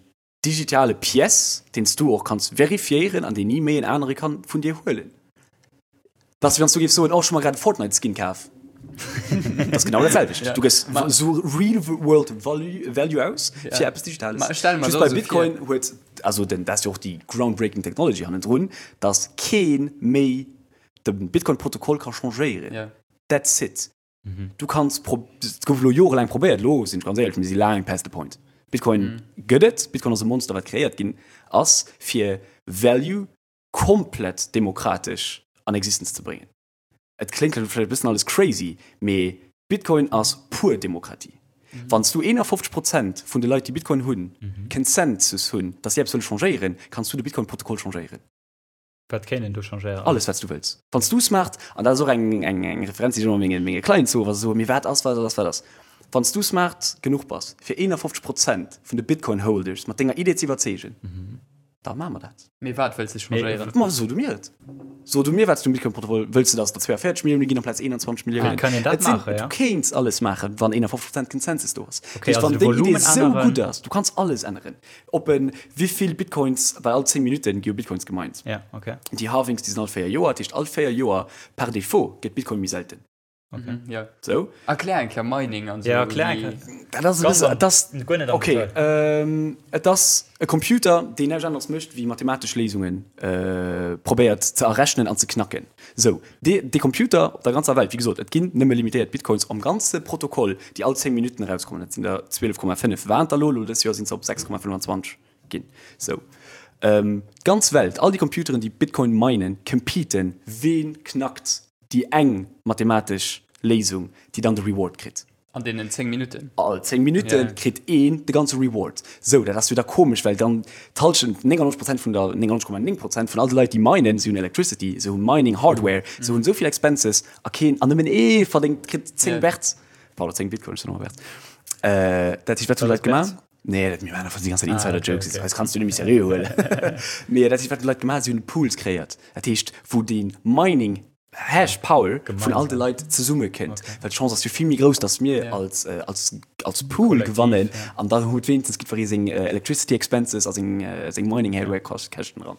digitale Pièce, deen s du och kanns verifiéieren an deen ni méi en anere kann vun dir huelen. Dat ass wéi wann s du géifs soen, oh ech hu mer grad e Fortnite Skin kaf. Dat ass genau dat selwecht. Du gëss sou real world value aus fir eppes Digitales. Ma ech stelle mer Just bei Bitcoin huet, also den, dat ass jo och déi groundbreaking technology hannendrun, dass kee méi de Bitcoin Protokoll ka changéieren. That's it. Du kanns pro et gouf elo jorelaang probéiert, elo sinn ech ganz éierlech, mir si laang past the point. Bitcoin gëtt et, Bitcoin ass e Monster wat kreéiert ginn ass fir Value komplett demokratesch an Existenz ze bréngen. Et kléngt elo vläicht e bëssen alles crazy, mee Bitcoin ass pur Demokratie. Wann s du 51 Prozent vun de Leit déi Bitcoin hunn, Consensus hunn, datt si eppes wëlle changéieren, kanns du de Bitcoin-Protokoll changéieren. Wat kéint een do changéieren? Alles, wat s du wëlls. Wann s du smart, an dat ass och eng, eng, eng Referenz, déi ech ëmmer menge, menge Clients soen, wa se soen, mee wat ass, wat ass, wat ass. Wann s du smart genuch bass, fir 51 Prozent vun de Bitcoin-Holders mat denger Idee ze iwwerzeegen, da maache mer dat. Mee wat wëlls de changéieren? Ma so du mir et. So du mir, wat s du um Bitcoin-Protokoll wëlls. De, datt et der 42 Millioune ginn amplaz 21 Milliounen? Kann een dat Et sinn, maachen, ja? Du kéints alles maachen, wann 51 Prozent Consensus do ass. Okay, Dat heescht, also wann de deng Idee Volumen esou änneren. gutt ass, du kanns alles änneren. Op en wéivill Bitcoins, well all 10 Minutten gi jo Bitcoins gemined. Ja, okay. Déi Halvings, déi sinn all 4 Joer, dat heescht all 4 Joer par défaut gëtt Bitcoin méi selten. Okay. Mhm, ja. Sou. Erklär eng Kéier Mining an sou. Ja, erklär eng Kéier. Dat ass e bësse, et ass, Guer net am okay, Detail. ähm, et ass e Computer, deen näischt aneres mécht wéi mathematesch Léisunge probéiert ze errechnen an ze knacken. Sou, dee, dee Computer op der ganzer Welt, wéi gesot, et ginn nëmme limitéiert Bitcoins am ganze Protokoll, déi all 10 Minutten erauskommen, dat sinn der 12,5 waren et der elo, elo dës Joer sinn se op 6,25 ginn. Sou, d'ganz Welt, all déi Computeren, déi Bitcoin minen, competen, ween knackt déi eng mathematesch Léisung, déi dann de Reward kritt. An deenen 10 Minutten? All 10 Minutte kritt een de ganze Reward. Sou, dat ass jo da komesch, well dann d'Hallschent, 99 Prozent vun der, 99,9 Prozent vun all de Leit, déi minen, si hunn Electricity, se hu Mining Hardware, se hunn esou vill Expenses a keen, an nëmmen ee verdéngt, kritt 10 Berz, pardon, 10 Bitcoin, ech soen ëmmer Berz. Dat heescht, wat hunn d'Leit gemaach? Nee, dat, mir maachen einfach déi ganz Zäit Insider-Jokes, eis kanns du net méi seriö huelen. Mee dat heescht, wat hunn d'Leit gemaach? Si hunn Pools kreéiert, dat heescht, wou dee Mining Hash Power vun all de Leit zesumme kënnt, well d'Chance ass jo vill méi grouss, datt mir als, als, als Pool gewannen an dann huet wéinstens jiddweree seng Electricity Expenses a seng, seng Mining Hardware Käschten dran.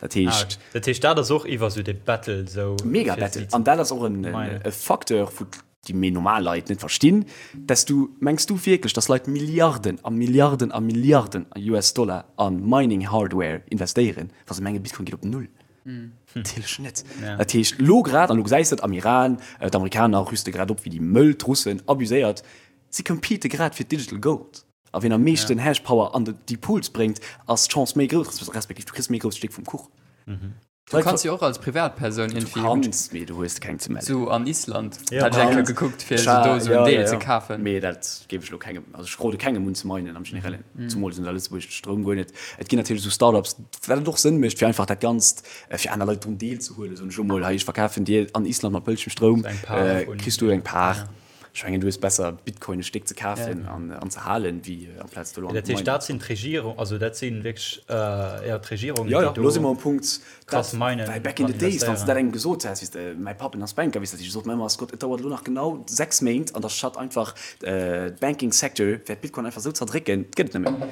Dat heescht. Ah, dat heescht dat ass och iwwer sou de Battle sou. Mega Battle an dat ass och en, e Facteur wou déi méi normal Leit net verstinn, dass du, mengs du wierklech, dass Leit Milliarden a Milliarden a Milliarden a US Dollar a Mining Hardware investéieren, wa se mengen Bitcoin geet op Null? Natierlech net. Dat heescht, elo grad, an elo gesäis de et am Iran, d'Amerikaner rüste grad op wéi déi Mëll, d'Russen abuséiert, si compete grad fir d'Digital Gold. A wien am meeschten Hashpower an déi Pools bréngt, ass d'Chance méi grouss, respektiv du kriss méi grousst Stéck vum Kuch. Du kanns jo och als Privatpersoun irgendwie. Du kanns, mee du hues keng ze mellen. Sou an Island hat ech eng Kéier gekuckt, fir sou do sou en Deel ze kafen. Mee dat géif ech elo kengem, also ech rode kengem un ze minen am Generellen. Zumools un der Lëtzebuerg de Stroum guer net. Et ginn natierlech esou Startups, wat et och Sënn mécht, fir einfach dat Ganzt, fir aner Leit drun deelzehuelen. Soen ech elo mol, hei ech verkafen dir an Island mat bëllegem Stroum, kriss du eng Par. Ech mengen, du hues besser, Bitcoin e Stéck ze kafen an ze halen, wéi amplaz do elo an Dat heescht, dat sinn d'Regierung, also dat si wierklech, jo, d'Regierungen, déi do. Jo, jo, elo si mer um Punkt, krass minen. Well back in the days, wann s de dat engem gesot häss, weess de, mäi Papp, en ass Banker, weess de, dat heescht, e sot mer ëmmer, Scott, et dauert elo nach genau 6 Méint an da shut einfach d'Banking Sector, wäert Bitcoin einfach esou zerdrécken, et gëtt et net méi.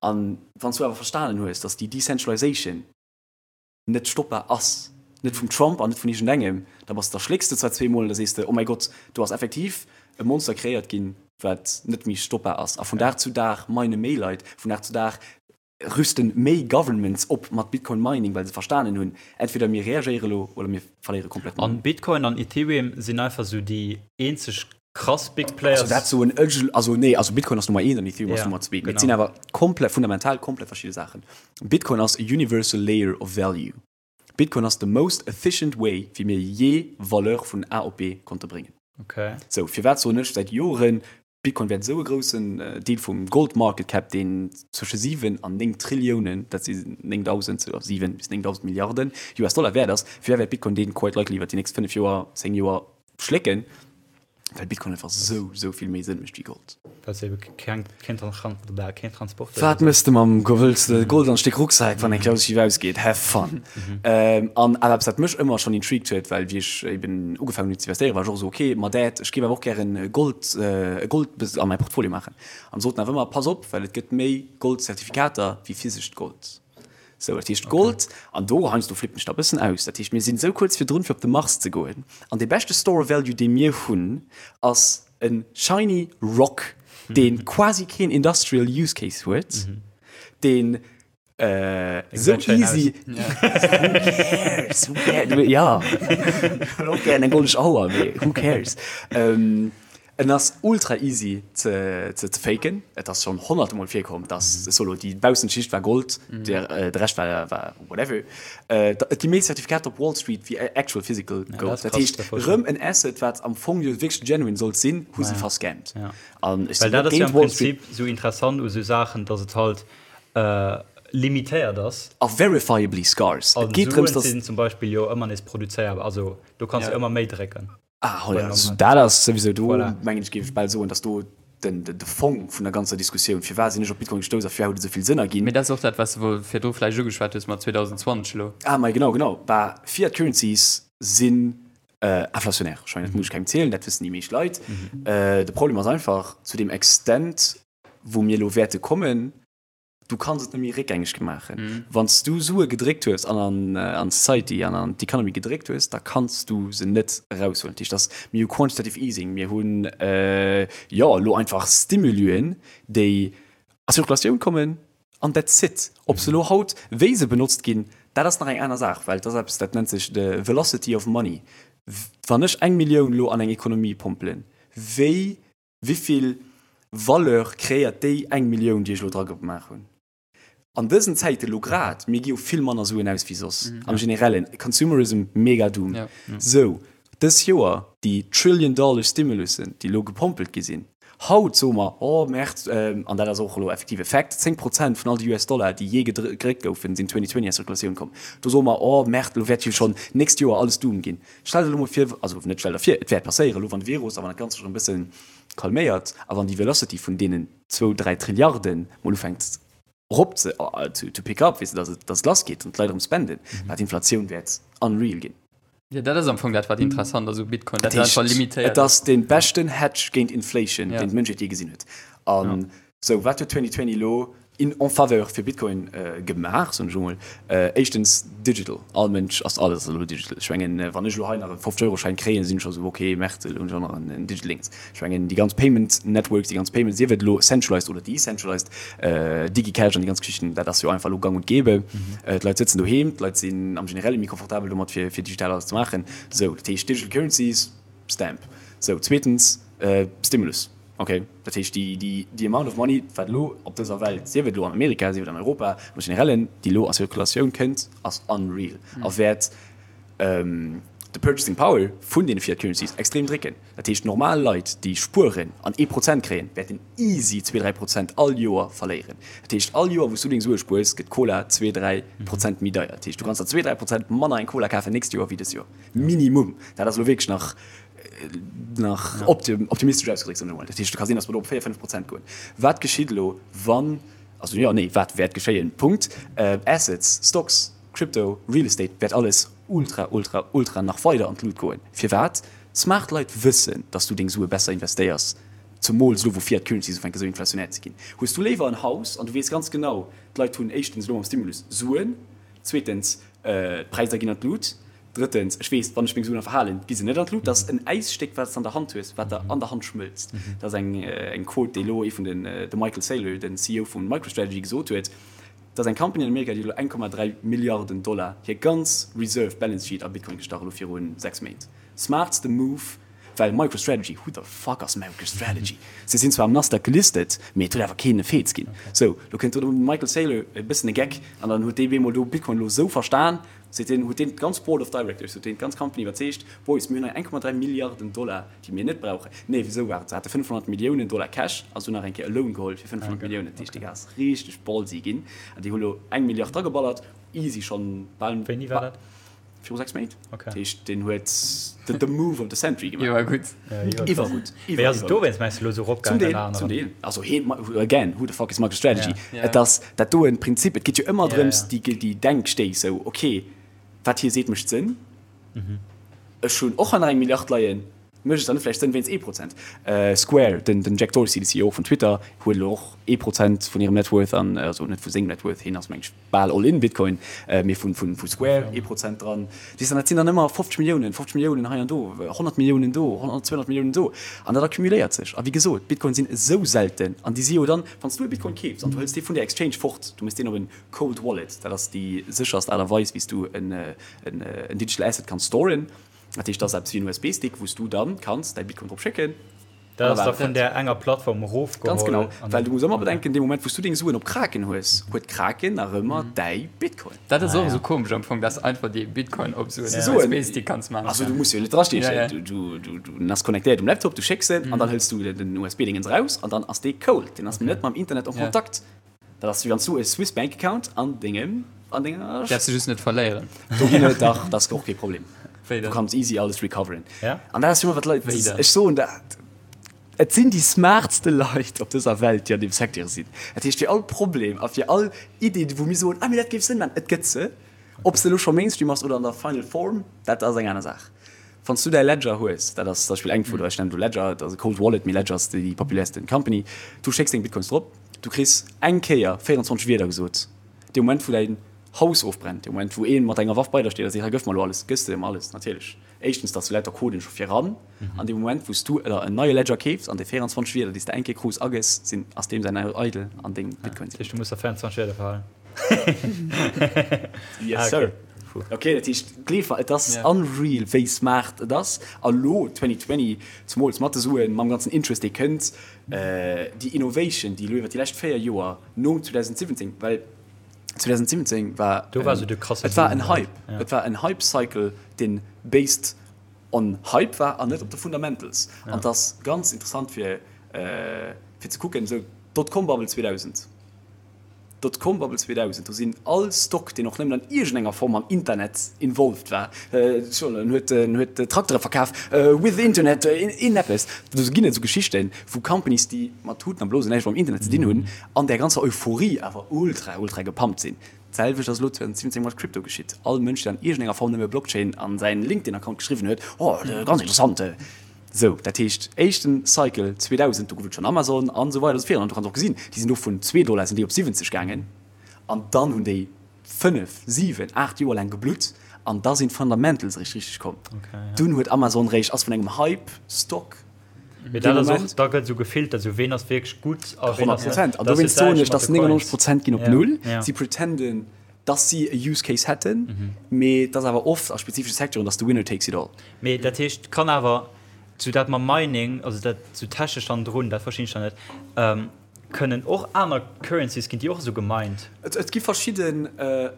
An wann s du awer verstanen hues, dass déi Decentralization net stoppbar ass, net vum Trump an net vun iergendengem, da bass, da schlécks de zwar zweemol an da sees de, oh mäi Gott, do ass effektiv e Monster kreéiert ginn, wat net méi stoppbar ass. A vun Dag zu Dag mine méi Leit, vun Dag zu Dag rüsten méi Governments op mat Bitcoin Mining, well se verstanen hunn, entweder mir reagéiere lo oder mir verléiere komplett. An Bitcoin an Ethereum sinn einfach sou déi eenzeg krass Big Players. Also dat soen ech, also nee, also Bitcoin ass Nummer eent an Ethereum ass Nummer zwee, mee et sinn awer komplett, fundamental komplett verschidde Saachen. Bitcoin ass a universal layer of value. Bitcoin ass the most efficient way wéi mir jee Valeur vun A op B konnte bréngen. Okay. Sou, firwat soen ech säit Joren, Bitcoin wäert esou e groussen Deel vum Gold Market Cap, deen zwësche 7 an 9 Trilliounen, dat si 9.000, 7 bis 9.000 Milliarden US Dollar wäert ass, firwat wäert Bitcoin deen quite likely iwwer déi nächst 5 Joer, 10 Joer schlécken? Well Bitcoin einfach sou, sou vill méi Sënn mécht wéi Gold. Well se ebe keng, keen, keen Transport. Wat mëss de mam Gold? Wëlls de Gold an Stéck Rucksak, wann eng Klaus schief ausgeet? Have fun! An awer eppes, wat mech ëmmer schonn intrigued huet, well wéi ech eben ugefaangen hunn ze investéieren, war ech och esou, ok, ma Dad, ech géif awer och gären Gold, Gold a mäi Portfolio maachen. An soten awer ëmmer, pass op, well et gëtt méi Goldzertifikater wéi physescht Gold. Sou, dat heescht Gold, an do heiansdo flippen ech da e bëssen aus, dat heescht mir sinn esou kuerz virdrun fir op de Mars ze goen, an dee beschte Store of Value dee mir hunn ass e shiny Rock, dee quasi keen industrial use case huet, deen esou easy, who cares, who cares, jo, ech hunn och gären eng goldesch Auer, mee who cares. En ass ultra easy ze faken, et ass schon honnerte mol virkomm dass solo déi baussent Schicht war Gold, de Rescht war war whatever. Et gi méi Zertifikater op Wall Street wéi actual physical Gold, dat heescht rëm en Asset wat am Fong jo wierklech genuine sollt sinn, hu se verscammt. An ech sinn net géint Wall Street. Well dat ass jo am Prinzip sou interessant u sou Saachen, dass et halt limitéiert ass. A verifiably scarce. Et geet drëms, dass. An Suen sinn zum Beispill jo ëmmer nees produzéierbar, also do kanns du ëmmer méi drécken. Ah, ja, also, dat ass souwisou do, voilà. mengen ech, géif ech bal soen, dass do den, den, de Fong vun der ganzer Diskussioun, firwat sinn ech op Bitcoin gestouss a firwat huet et esou vill Sënn erginn. Mee dat ass och dat, wat s de wuel virdru vläicht ugeschwat hues mat 2020 elo. Ah, mei genau, genau. Bah, Fiat Currencies sinn äh, inflationär. Ech mengen, dat muss ech kengem zielen, dat wëssen déi meescht Leit. Mhm. Äh, de Problem ass einfach, zu deem Extent, wou mir elo wäerte kommen, Du kanns et net méi réckgängeg maachen. Wann s du Sue gedréckt hues an an an d'Society an an d'Economy gedréckt hues, da kanns du se net eraushuelen. Dat heescht, dass mir hu Quantitative Easing, mir hunn jo elo einfach Stimuluen, déi a Zirkulatioun kommen an that's it. Ob se elo haut, wéi se benotzt ginn, dat ass nach eng aner Saach, well et ass eppes, dat nennt sech the velocity of money. Wann ech eng Millioun elo an eng Economie pompelen, wéi Wivill Valeur kreéiert déi eng Millioun, déi ech elo dra gemaach hunn? An dësen Zäiten elo grad, mir gi jo vill manner Suen aus wéi soss am Generellen, Consumerism mega doom. Sou, dës Joer déi Trillion Dollar Stimulussen, déi elo gepompelt gi sinn, haut soe mer, oh Merd, an dat ass och elo effektiv e Fact, 10 Prozent vun all de US Dollar, déi jee gedréckt goufen, sinn 2020 a Zirkulatioun komm. Do soe mer, oh Merd, elo wäert jo schonn d'nächst Joer alles doom ginn. Stell der elo mol vir, also net stell der vir, et wäert passéieren, elo wann de Virus a wann dat Ganzt sech erëm e bësse calméiert a wann déi Velocity vun deenen zwou, dräi Trilliarde mol ufänkt erop ze, to pick up, weess de, dass et, dass et lassgeet an d'Leit erëm spenden, bah, d'Inflatioun wäert unreal ginn. Jo, dat ass am Fong dat, wat interessant ass u Bitcoin, dat et einfach limitéiert ass. Et ass dee beschten Hedge géint Inflation, deen d'Mënschheet jee gesinn huet. An Sou, wat huet 2020 elo in en faveur fir Bitcoin gemaach, soen ech emol? Éischtens digital, all Mënsch ass, alles ass elo digital. Ech mengen, wann ech elo hei nach e 50 Euro Schäin kréien, sinn ech scho sou, ok, Merde, elo hunn ech och nach en digital Dings. Ech mengen, déi ganz Payment Networks, déi ganz Payments, sief et elo centralized oder decentralized, DigiCash an déi ganz Geschichten, dat ass jo einfach elo gang und gäbe. D'Leit sëtzen doheem, d'Leit sinn am Generelle méi confortabel domat, fir digital alles ze maachen. Sou, dat heescht Digital Currencies, Stamp. Sou, zweetens, Stimulus. Ok, dat heescht déi, déi, déi amount of money, wat elo op dëser Welt, sief et elo an Amerika, sief et an Europa, am Generellen, déi elo a Zirkulatioun kënnt, ass unreal a wäert de purchasing power vun deene Fiat Currencies extrem drécken. Dat heescht, normal Leit, déi spueren an ee Prozent kréien, wäerten easy zwee, dräi Prozent all Joer verléieren. Dat heescht, all Joer, wou s du deng Sue spuers, gëtt d'Cola zwee, dräi Prozent méi deier. Dat heescht, du kanns der zwee, dräi Prozent manner eng Cola kafen nächst Joer wéi dës Joer. Minimum. Dat ass elo wierklech nach. Nach optimistesch ausgedréckt, soen ech emol. Dat heescht, et ka sinn, datt mer do op 4, 5 Prozent goen. Wat geschitt elo, wann, also jo, nee, wat wäert geschéien? Punkt. Assets, Stocks, Crypto, Real Estate wäert alles ultra, ultra, ultra nach weider an d'Lut goen. Firwat? Smart Leit wëssen, datt s du deng Sue besser investéiers, zemools elo wou Fiat Currencies ufänke sou inflationär ze ginn. Hues du léiwer en Haus an du weess ganz genau, d'Leit hunn éischtens elo mam Stimulus Suen, zweetens d'Präisser ginn an d'Lut, Drëttens, ech weess, wann ech meng Suen verhalen, gi se net an d'Lut. Dat ass en Äisstéck, wat s de an der Hand hues, wat der an der Hand schmëlzt. Dat ass eng eng Quote, déi elo ee vun den, de Michael Saylor, den CEO vu MicroStrategy, gesot huet. Dat ass eng Company an Amerika, déi huet elo 1,3 Milliarden Dollar hir ganz Reserve Balance Sheet a Bitcoin gestach elo viru 6 Méint. Smartste Move, well MicroStrategy, who the fuck ass MicroStrategy? Se sinn zwar am Nasdaq gelistet, mee et huet awer keen e Feez ginn. Sou, lo kënnt do de Michael Saylor, e bëssen e Geck, an dann huet dee bemol do Bitcoin elo esou verstan, Seet deen, huet deen d'ganz Board of Directors, huet deen d'ganz Company iwwerzeegt, Boys, mir hunn hei 1,3 Milliarden Dollar, déi mir net brauchen. Nee, wisou war et? Se hate 500 Milliounen Dollar Cash a se hunn nach eng Kéier e Loan geholl fir 500 Milliounen. Dat heescht, déi ass richteg ballsy ginn an déi hu lo eng Milliard drageballert, easy schonn bal. Wéini war dat? Viru 6 Méint. Dat heescht, deen huet the move of the century gemaach. Iwwergutt. Iwwergutt. Mee ass et dowéinst, mengs de, elo esou eropgaangen ënner anerem? Zum Deel, zum Deel. Also heen, again, who the fuck is MicroStrategy? Et ass dat doen Prinzip, et geet jo ëmmer drëms, déi, déi Denkstéiss, sou, ok, wat hie seet mécht Sënn, ech hunn och hei nach eng Milliard leien, mécht et dann net vläicht Sënn wéinst ee Prozent? Square, den, den Jack Dorsey, de CEO vun Twitter, huet elo och ee Prozent vun hirem Net Worth an, also net vu sengem Net Worth, hien ass meng ech bal all in Bitcoin, mee vu, vu, vu Square ee Prozent dran. Weess de, dat sinn dann ëmmer 50 Milliounen, 50 Milliounen hei an do, 100 Milliounen do, 100, 200 Milliounen do. An dat accumuléiert sech. A wéi gesot, Bitcoin sinn esou selten an déi si jo dann, wann s du e Bitcoin keefs an du hëls dee vun der Exchange fort, du méchs deen op en Cold Wallet, dat ass déi sécherst Aart a Weis, wéi s du en, en, en Digital Asset kanns storen. Dat heescht, dat ass eppes wéi en USB-Stick, wou s du dann kanns däi Bitcoin drop schécken. Dat ass da vun där enger Plattform erofgeholl. Ganz genau, well du muss ëmmer bedenken, dee Moment wou s du deng Suen op Kraken hues, huet Kraken nach ëmmer däi Bitcoin. Dat ass och esou komesch am Fong, dass einfach dee Bitcoin op esou en USB-Stick kanns maachen. Also du muss jo net drastiechen, du ass connectéiert um Laptop, du schécks en an dann hëls du den USB-Dingens eraus an dann ass dee cold, deen ass net mam Internet en Kontakt. Dat ass wéi wann s du e Swiss Bank Account an dengem, an denger. Däerfs de just net verléieren. Do ginn et dach, dat ass och kee Problem. Wéi dann? Du kanns easy alles recoveren. Ja. An dat ass jo wat d'Leit, Wéi dann? ech soen dat, et sinn déi smartste Leit op dëser Welt, déi an deem Secteur sinn. Dat heescht, fir all Problem a fir all Idee, wou mir soen, ah mee dat géif Sënn maachen, et gëtt se. Ob se elo scho Mainstream ass oder an der Final Form, dat ass eng aner Saach. Wann s du däi Ledger hues, dat ass zum Beispill eng vun, ech nennen elo Ledger, dat ass e Cold Wallet, mee Ledger ass déi populärsten Company, du schécks deng Bitcoins drop, du kriss eng Kéier 24 Wierder gesot, dee Moment wou däin Haus ofbrennt, dee Moment wou ee mat enger Waff bei der steet a seet, hei gëff mer elo alles, gëss de em alles natierlech. Éischtens, dass du lauter Coden scho viran, an deem Moment wou s du der en neie Ledger keefs an déi 24 Wierder déi s de eng Kéier krus agëss, sinn, ass deem säin Eidel an deng Bitcoins sinn. Dat heescht du muss der 24 Wierder verhalen. Yes sir. Ok, dat heescht gleef mer, et ass unreal wéi smart et ass. A lo 2020, zemools mat de Suen, mam ganzen Interest dee kënnt, déi Innovation déi elo iwwer déi lescht 4 Joer nom 2017, well 2017 war Do war sou de krasse et war en Hype, et war en Hype Cycle deen based on Hype war an net op de Fundamentals. An et ass ganz interessant fir fir ze kucken, esou d'Dotcom-Bubble 2000. Dotcom-Bubble 2000, do sinn all Stock, deen och nëmmen an iergendenger Form mam Internet involved war, en huet en huet Traktere verkaf with Internet, een eppes, do ginn et esou Geschichten, wou Companies, déi mat Tuten a Blosen näischt mam Internet ze dinn hunn, an där ganzer Euphorie awer ultra, ultra gepumpt sinn. D'selwecht ass elo 2017 mat Crypto geschitt. All Mënsch, deen an iergendenger Form nëmme Blockchain an säin LinkedIn-Account geschriwwen huet, oh, ganz interessant, Sou, dat heescht, éischten Cycle 2000, do gouf et schonn Amazon an esou weider an esou virun. An du kanns och gesinn, déi sinn do vun zwee Dollar sinn déi op 70 gaangen an dann hunn déi fënnef, siwen, aacht Joer laang geblutt an da sinn d'Fundamentals eréischt richteg komm. Dunn huet Amazon réischt, ass vun engem Hype-Stock Mee dat ass och, da gëtt esou gefiltert, esou ween ass wierklech gutt a ween ass net. 100 Prozent. An dowéinst soen ech, dass 99 Prozent ginn op Null. Si pretenden, dass si e Use Case hätten, mee et ass awer oft a spezifesche Secteuren, dass the winner takes it all. Mee dat heescht, kann awer sou dat mam Mining, also dat sou technesch hannendrun, dat verstinn ech dann net, kënnen och aner Currencies, ginn déi och esou gemined? Et gi verschidden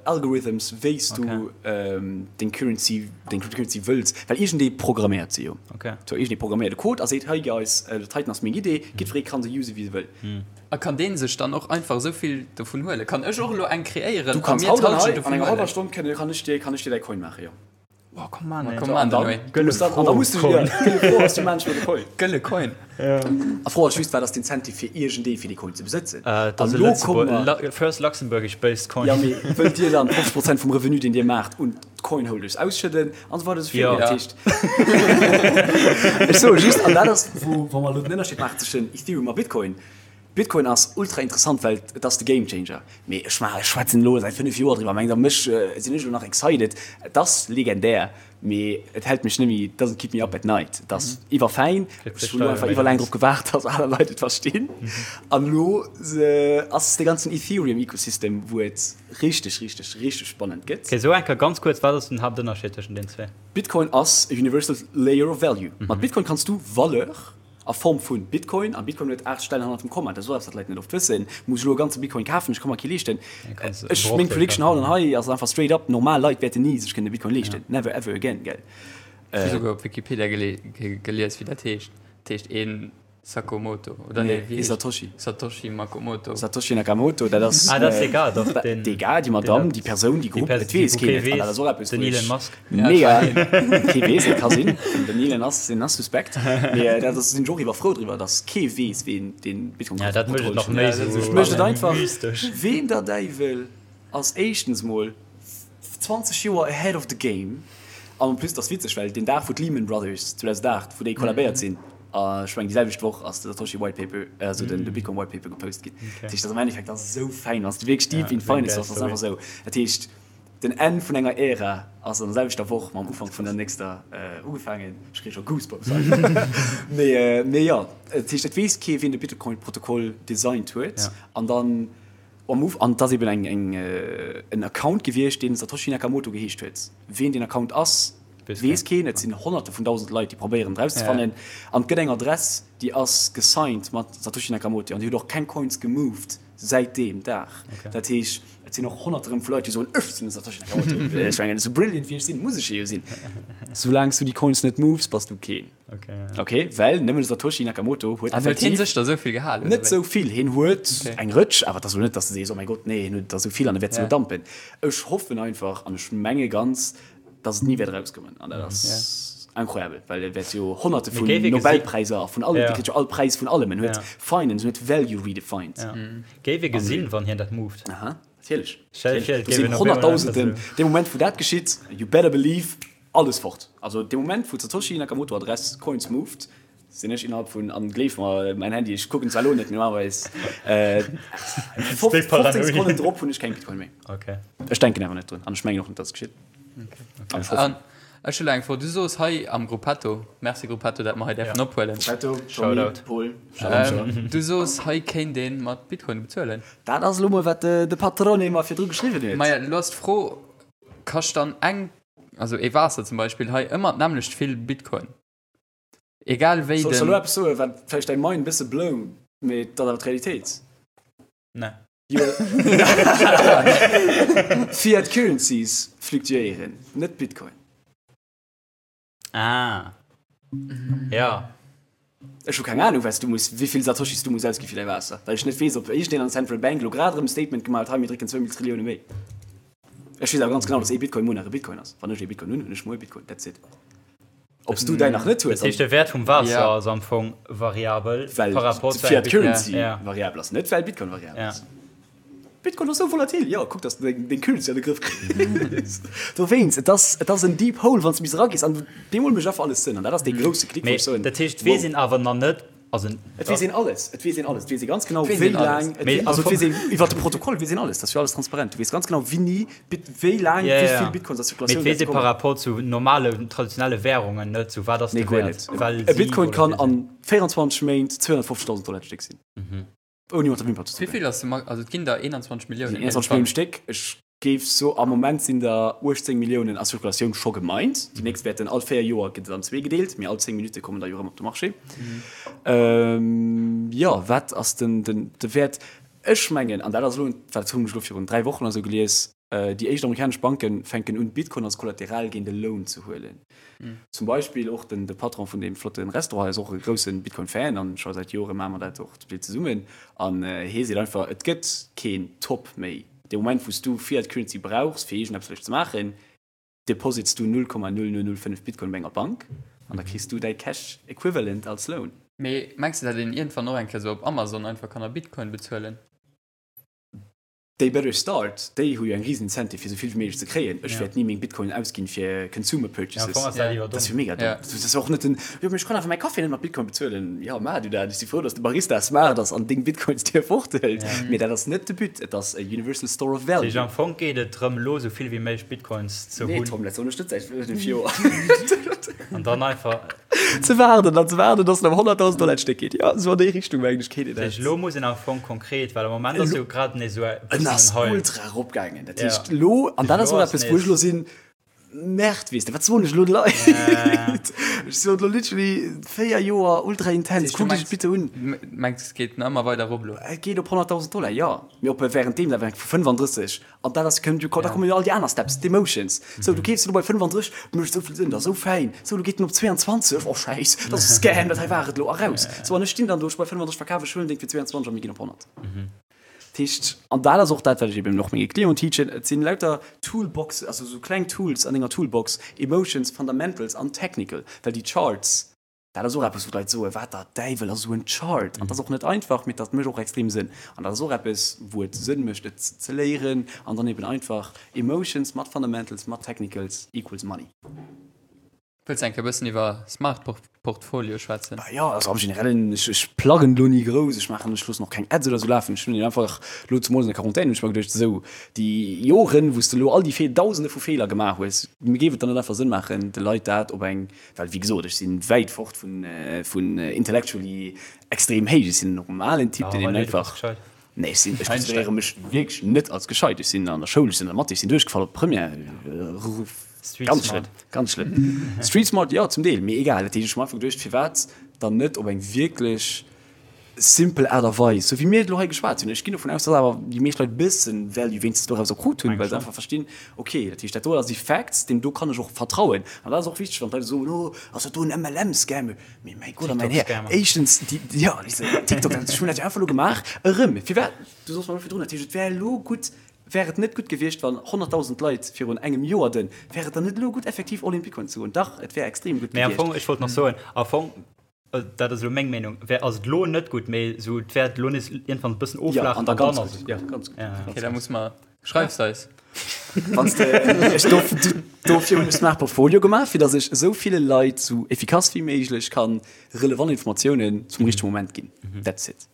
Algorithms, wéi s du deng Currency, deng Cryptocurrency wëlls, well iergendee programméiert se jo. Sou iergendee programméiert e Code a seet, hei guys, dat heiten ass meng Idee, jiddweree ka se use wéi se wëll. A kann deen sech dann och einfach esou vill dovun huelen? Kann ech och elo eng kreéieren a mir d'Halschent dovun huelen? Du kanns haut an enger hallwer Stonn kann ech dir, kann ech dir däi Coin maachen, jo. Oh, komm an, ey. Komm an, Dann, Noé. du musst dann, an da musst du Coin. ja, gëlle Fro ass, du manchmal de Coin. Gëlle Coin. A Fro ass just, wat ass d'Incentive fir iergendee fir dee Coin ze besëtzen? Äh, dat An ass e lo komme Lëtzebuerg, mer, Lu first Luxembourgish based coin. ja, mee wëllt Dir dann 50 Prozent vum Revenu, deen Dir maacht, un d'Coinholders ausschëdden an esou weider esou Ja. virun? Dat heescht, ech soe just, an dat ass, wou, wa mer elo den Ënnerscheed maachen zwëschen Ethereum a Bitcoin, Bitcoin ass ultra interessant, well et ass de Game Changer. Mee ech maachen, ech schwätzen elo säit 5 Joer driwwer, mengt der mech, sinn ech elo nach excited? Et ass legendär, mee et hält mech net méi, it doesn't keep me up at night. Et ass iwwerfäin, ech hunn elo einfach iwwerlaang drop gewaart, dass aner Leit et verstinn. An elo ass de ganzen Ethereum-Ecosystem, wou et richteg, richteg, richteg spannend gëtt. Okay, so eng Kéier ganz kuerz, wat ass den Haaptënnerscheed tëschent den zwee? Bitcoin ass e universal layer of value. Mat Bitcoin kanns du Valeur A Form vu Bitcoin, a Bitcoin huet 8 Stellen hannert dem Komma, dat ass och eppes, wat d'Leit net oft wëssen, muss ech elo e ganze Bitcoin kafen, ech ka mer kee leeschten. Ech, meng Prediction haut an hei ass einfach straight up, normal Leit wäerten ni sech kënnen e Bitcoin leeschten, never ever again, gell. Ech hu souguer op Wikipedia gelies, wéi dat heescht. Dat heescht een Sakomoto, oder nee, wéi heescht Satoshi. Satoshi Makomoto. Satoshi Nakamoto, dat ass. Ah, dat ass egal, doch, deen. D'egal, déi Madamm, déi Persoun, déi Grupp, et weess keen et. An dat ass och eppes, Den wou Elon ech. Musk. Mega! Kee weess, et ka sinn. Den Elon ass, deen ass suspekt. Mee dat ass, sinn ech och iwwer frou driwwer, datt kee weess, ween dee Bitcoin Ja, dat mécht et nach méi Protokoll sou mécht et einfach. mystesch. Ween der Däiwel ass éischtens mol 20 Joer ahead of the game? An en plus, et ass witzeg, well deen Dag, wou d'Lehman Brothers 2008, wou déi kollabéiert sinn, a ech mengen déi selwecht Woch ass de Satoshi White Paper, also den de Bitcoin White Paper gepost ginn. Dat heescht, dat ass am Endeffekt, dat ass esou fäin, wann s de wierklech deep in finance bass, dat ass einfach esou. Dat heescht, Den Enn vun enger Ära ass an der selwechter Woch mam Ufank vun der nächster ugefaangen. Ech kréie scho Goosebumps hei. Mee, mee jo, dat heescht, et weess kee wien de Bitcoin-Protokoll designt huet. An dann am Uf, an et ass eben eng, eng, en Account gewiescht, deen Satoshi Nakamoto geheescht huet. Wien deen Account ass, weess keen. Et sinn Honnerte vun dausend Leit, déi probéieren et erauszefannen. An et gëtt eng Adress, déi ass gesigned mat Satoshi Nakamoto an déi huet och keng Coins gemoved. Säit deem Dag. Dat heescht, et sinn och Honnerte rëm vu Leit, déi soen, Ech sinn de Satoshi Nakamoto. Ech mengen, esou brilliant wéi ech sinn, muss ech e jo sinn. Soulaang s du déi Coins net moves, bass du keen. Ok, well nëmmen de Satoshi Nakamoto huet An huet hien effektiv sech der esou vill gehalen, oder net wéi? esou vill. Hien huet eng Rëtsch, awer et ass elo net, datt s de sees, Oh mäi Gott, nee, hien huet der esou vill an e wäert se elo dampen. Ech hoffen einfach an ech menge ganz, dass et ni wäert erauskommen an dat ass incroyable, well e wäert jo Honnerte vun Nobelpräiser a vun allem, dee kritt jo all Präis vun allem, en huet Finance, en huet Value redefined. Géif ee gesinn, wann hien dat moved. Aha, natierlech. Do sinn Honnertdausenden, dee Moment wou dat geschitt, you better believe, alles fort. Also dee Moment wou d'Satoshi Nakamoto Adress Coins moved, Sinn ech innerhalb vun, an gleef mer, mäin Handy, ech kucken zwar elo net, mee normalerweis 15 Sekonnen drop hunn ech keng Bitcoin méi. Okay. Ech denken awer net drun an ech mengen och net, dass et geschitt. An ech hoffen. Ech hu elo eng Fro. Du soos hei am Gruppetto, merci Gruppetto, dat mer hei däerfen ophuelen. Gruppetto, Tommy, Paul, Shalom. Du soos, hei kéint ee mat Bitcoin bezuelen. Dat ass elo mol, wat de Patrone mer virdru geschriwwen huet. Maja, elo ass d'Fro, kascht dann eng, also ee Waasser zum Beispill hei ëmmer d'nämmlecht vill Bitcoin? Egal wéi Soll ech den. elo eppes soen, wat vläicht däi Mind e bësse blown, mee et ass awer d'Realitéit? Nee. Fiat Currencies fluktuéieren, net Bitcoin. Ah. Ja. Ech hu keng Anung, wat s du muss, wéi vill Satoshis du muss ausgi fir däi Waasser, well ech net weess, ob iergendeen an der Central Bank elo grad erëm e Statement gemaach huet, hei mir drécken zwou mil Trillioune méi. Ech weess awer ganz genau, dass ee Bitcoin muer nach e Bitcoin ass. Wann ech ee Bitcoin hunn, hunn ech muer e Bitcoin. That's it. Ob s du däin nach net hues. Dat heescht, de Wäert vum Waasser ass am Fong variabel well par rapport zu engem d'Fiat Currency variabel ass, net well Bitcoin variabel ass. Bitcoin ass sou volatil, jo, kuck, dass de deng Currency an de Grëff kriss. Dowéinst, et ass, et ass en deep hole, wann s de bis eragees an deemol mécht einfach alles Sënn. An dat ass dee grousse Klick, wou ech soen, Mee dat heescht, et weess een awer nach net, Also, Et weess een alles, et weess een alles, et weess ee ganz genau, wéi laang, also et weess een iwwer de Protokoll weess een alles, dat ass jo alles transparent. Du weess ganz genau, wéini, wéi laang, wéi vill Bitcoins a Zirkulatioun wäerte kommen. Mee et weess ee par rapport zu normale, traditionelle Währungen net, sou wat ass de Nee, guer Wäert, net. well E si Bitcoin kann volatil sinn. an 24 Méint 250.000 Dollar d'Stéck sinn. Ouni mat der Wimper ze Wéi zucken. vill ass de Max, also et ginn der 21 Milliounen. 21 Milliounen Stéck. Ech géif so, am Moment sinn der 18 Milliounen a Zirkulatioun scho gemined. Déi nächst wäerten all 4 Joer gëtt et an zwee gedeelt, mee all 10 Minutte kommen der jo erëm op de Marché. Jo, wat ass den, den, de Wäert? Ech mengen, an dat ass elo, dat hunn ech elo virun 3 Wochen oder sou gelies, Déi éischt amerikanesch Banke fänken un, Bitcoin als Kollateral géint e Loan ze huelen. Zum Beispill och den de Patron vun deem flotte Restaurant hei ass och e grousse Bitcoin-Fan an scho säit Jore maache mer dat och zum Deel zesummen. An hie seet einfach, et gëtt keen Top méi. Dee Moment, wou s du Fiat Currency brauchs, fir iergendeppes vläicht ze maachen. Deposits du 0,0005 Bitcoin bei enger Bank an da kriss du däi Cash Equivalent als Loan. Mee mengs de dat een iergendwann och eng Kéier sou op Amazon einfach kann a Bitcoin bezuelen? They better start, déi hu jo eng riesen Incentive fir sou vill wéi méiglech ze kréien. Ech wäert ni meng Bitcoin ausginn fir Consumer Purchases. Dat ass jo mega domm. Dat ass och net den, jo mee ech kann awer mäi Café net mat Bitcoin bezuelen. Jo maach du dat, ech si frou datt de Barista smart ass an deng Bitcoins dir forthëlt. Mee dat ass net de But, et ass e universal store of value. Dat heescht am Fong geet et drëm elo sou vill wéi méiglech Bitcoins ze hunn. Nee Tom, dat soen ech net säit 5 Joer. An dann einfach. Ze waarden an ze waarden, dass en op 100.000 Dollar d'Stéck geet. Jo, esou an déi Richtung mengen ech geet et. Dat heescht, elo muss een am Fong konkret, well am Moment ass jo grad nees esou e En bëssen ass en Hype. ultra eropgaangen. Dat heescht, elo, an dat ass och eppes, wou ech elo sinn, Merde, weess de, wat soen ech elo de Leit? Ech soen elo literally 4 Joer ultra intens, kuckt iech et bitte un. Mengs de, et geet nach ëmmer weider erop elo? Et geet op 100.000 Dollar, jo. Mee op währenddeem, dat war vu 35 An dat ass, kënnt jo, da kommen jo all déi aner Steps, d'Emotions. Sou, du keefs elo bei 35, mécht esou vill Sënn, dat ass esou fäin. Sou, lo geet en op 22, oh Schäiss, dat ass e Scam, dat hei war et elo, a raus. Sou, an ech stinn dann do, ech bei 35 verkaf, ech huelen deng fir 22 a mir ginn op 100. Dat heescht, an dat ass och dat, wat ech eben och menge Clienten teachen, et sinn lauter Toolboxen, also esou kleng Tools an denger Toolbox, Emotions, Fundamentals an Technical, well déi Charts, Dat ass och eppes, wou d'Leit soen, Wat der Däiwel ass esou en Chart? An dat ass och net einfach, mee dat mécht och extrem Sënn. An dat ass och eppes, wou et Sënn mécht, et ze léieren an dann eben einfach Emotions mat Fundamentals, mat Technicals equals money. Wëlls de eng Kéier e bëssen iwwer Smart Portfolio schwätzen? Bah jo, also am Generellen, ech, ech pluggen elo ni grouss, ech maachen, ech loossen och keng Ads oder esou lafen. Ech hunn einfach elo zemools an der Quarantaine hunn ech mer geduecht, esou déi Joren, wou s de elo all déi Fee, Dausende vu Feeler gemaach hues, géif et dann net einfach Sënn maachen, de Leit dat op eng Well wéi gesot, ech si wäit fort vun intellectually extrem héich. Ech sinn en normalen Typ, deen eben einfach. Nee, ech sinn, ech consideréiere mech wierklech net als gescheit. Ech sinn an der Schoul, ech sinn an der Mathé, ech sinn duerchgefall op d'Première. Ganz schlëmm, ganz schlëmm. Street smart, jo, zum Deel, mee egal. Dat heescht, ech hu mer einfach geduecht, firwat dann net op eng wierklech simpel Aart a Weis, sou wéi mir et elo hei geschwat hunn. Ech ginn dovun aus, dass awer déi meescht Leit e bëssen Value wéinstens dorauser krut hunn, well se einfach verstinn, okay, dat heescht, dat do ass déi Facts, deem do kann ech och vertrauen. An dat ass och wichteg, wann d'Leit soen, oh, ass dat do en MLM-Scam? Mee mäi Gott a mäin Här, éischtens, déi, jo, TikTok, ech hunn dat jo einfach elo gemaach, erëm, firwat, du soss mer elo virdrun, dat heescht, et wär elo gutt, wär et net gutt gewiescht, wann 100.000 Leit virun engem Joer den, wär et dann net elo gutt, effektiv all in Bitcoin ze goen? Dach, et wär extrem gutt gewiescht. Mee am Fong, ech wollt nach soen, am Fong, Dat ass elo meng Meenung. Wär ass et elo net gutt, mee esou et wäert elo nees iergendwann e bëssen oflaachen an dann ass et gutt. Ja, ganz gutt. Ja, okay, da muss mer schreifs eis. Wanns de ech do, dofir hunn ech Smart Portfolio gemaach, fir datt ech esou ville Leit sou efficace wéi méiglech kann relevant Informatiounen zum richtege Moment ginn. That's it.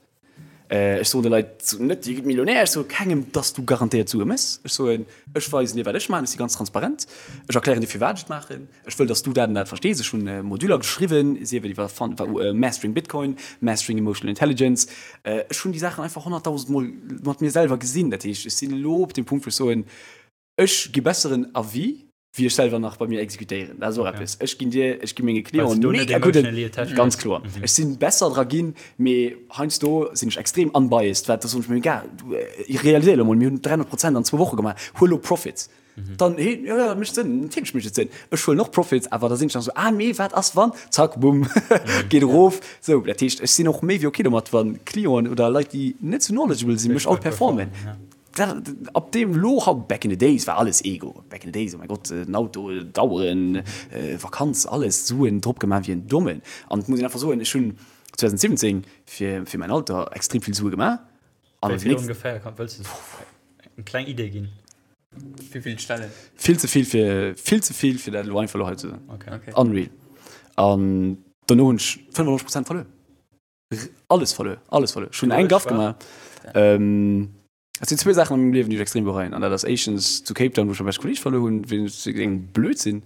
Ech soen de Leit net, Dir gitt Millionär. Ech soe kengem, dass du garantéiert Sue méchs. Ech soen, ech weisen dir, wat ech maachen. Ech si ganz transparent. Ech erklären dir, firwat ech et maachen. Ech wëll, dass du dat an dat verstees. Ech hunn Moduler geschriwwen, sief et iwwer Mastering Bitcoin, Mastering Emotional Intelligence. Ech hunn déi Saachen einfach honnertdausendmol mat mir selwer gesinn. Dat heescht, ech sinn elo op deem Punkt, wou ech soen, ech gi besseren Avis, wéi ech selwer nach bei mir exekutéieren. Dat ass och eppes. Ech ginn dir, ech gi menge Clienten mega gudden, ganz kloer. Ech sinn besser dra ginn, mee heiansdo sinn ech extrem unbiased, wat da soen ech mir, egal, du realiséier elo mol, mir hunn 300 Prozent an zwou Woche gemaach, huel elo Profits. Dann, hee, jo, jo, dat mécht Sënn, natierlech mécht et Sënn. Ech huelen och Profits, awer da sinn ech nach esou, ah mee wat ass wann, zack, bumm, geet erof. Sou, dat heescht, ech sinn och méi wéi ok domat, wa Clienten oder Leit, déi net sou knowledgeable sinn, mech outperformen. Dat, ab deem lo haut, back in the days war alles Ego, back in the days, oh mäi Gott, den Auto, d'Aueren, Vakanz, alles, Suen drop gemaach wéi en Dommen. An et muss een einfach soen, ech hunn 2017 fir, fir mäin Alter extrem vill Sue gemaach. An Wéi vill ongeféier, kann, wëlls de eng kleng Idee ginn? Wéi vill Stellen? Vill ze vill fir, vill ze vill fir dat elo einfach elo hei ze soen. Okay. Okay. Unreal. An dono hunn ech 95 Prozent verluer. Alles verluer, alles verluer. Ech hunn eng Gaff gemaach. Ähm, et sinn zwee Saachen an mengem Liewen, déi ech extrem bereien. An dat ass éischtens zu Cape Town, wou ech mäi beschte Kolleeg verluer hunn, wéinst engem Blödsinn.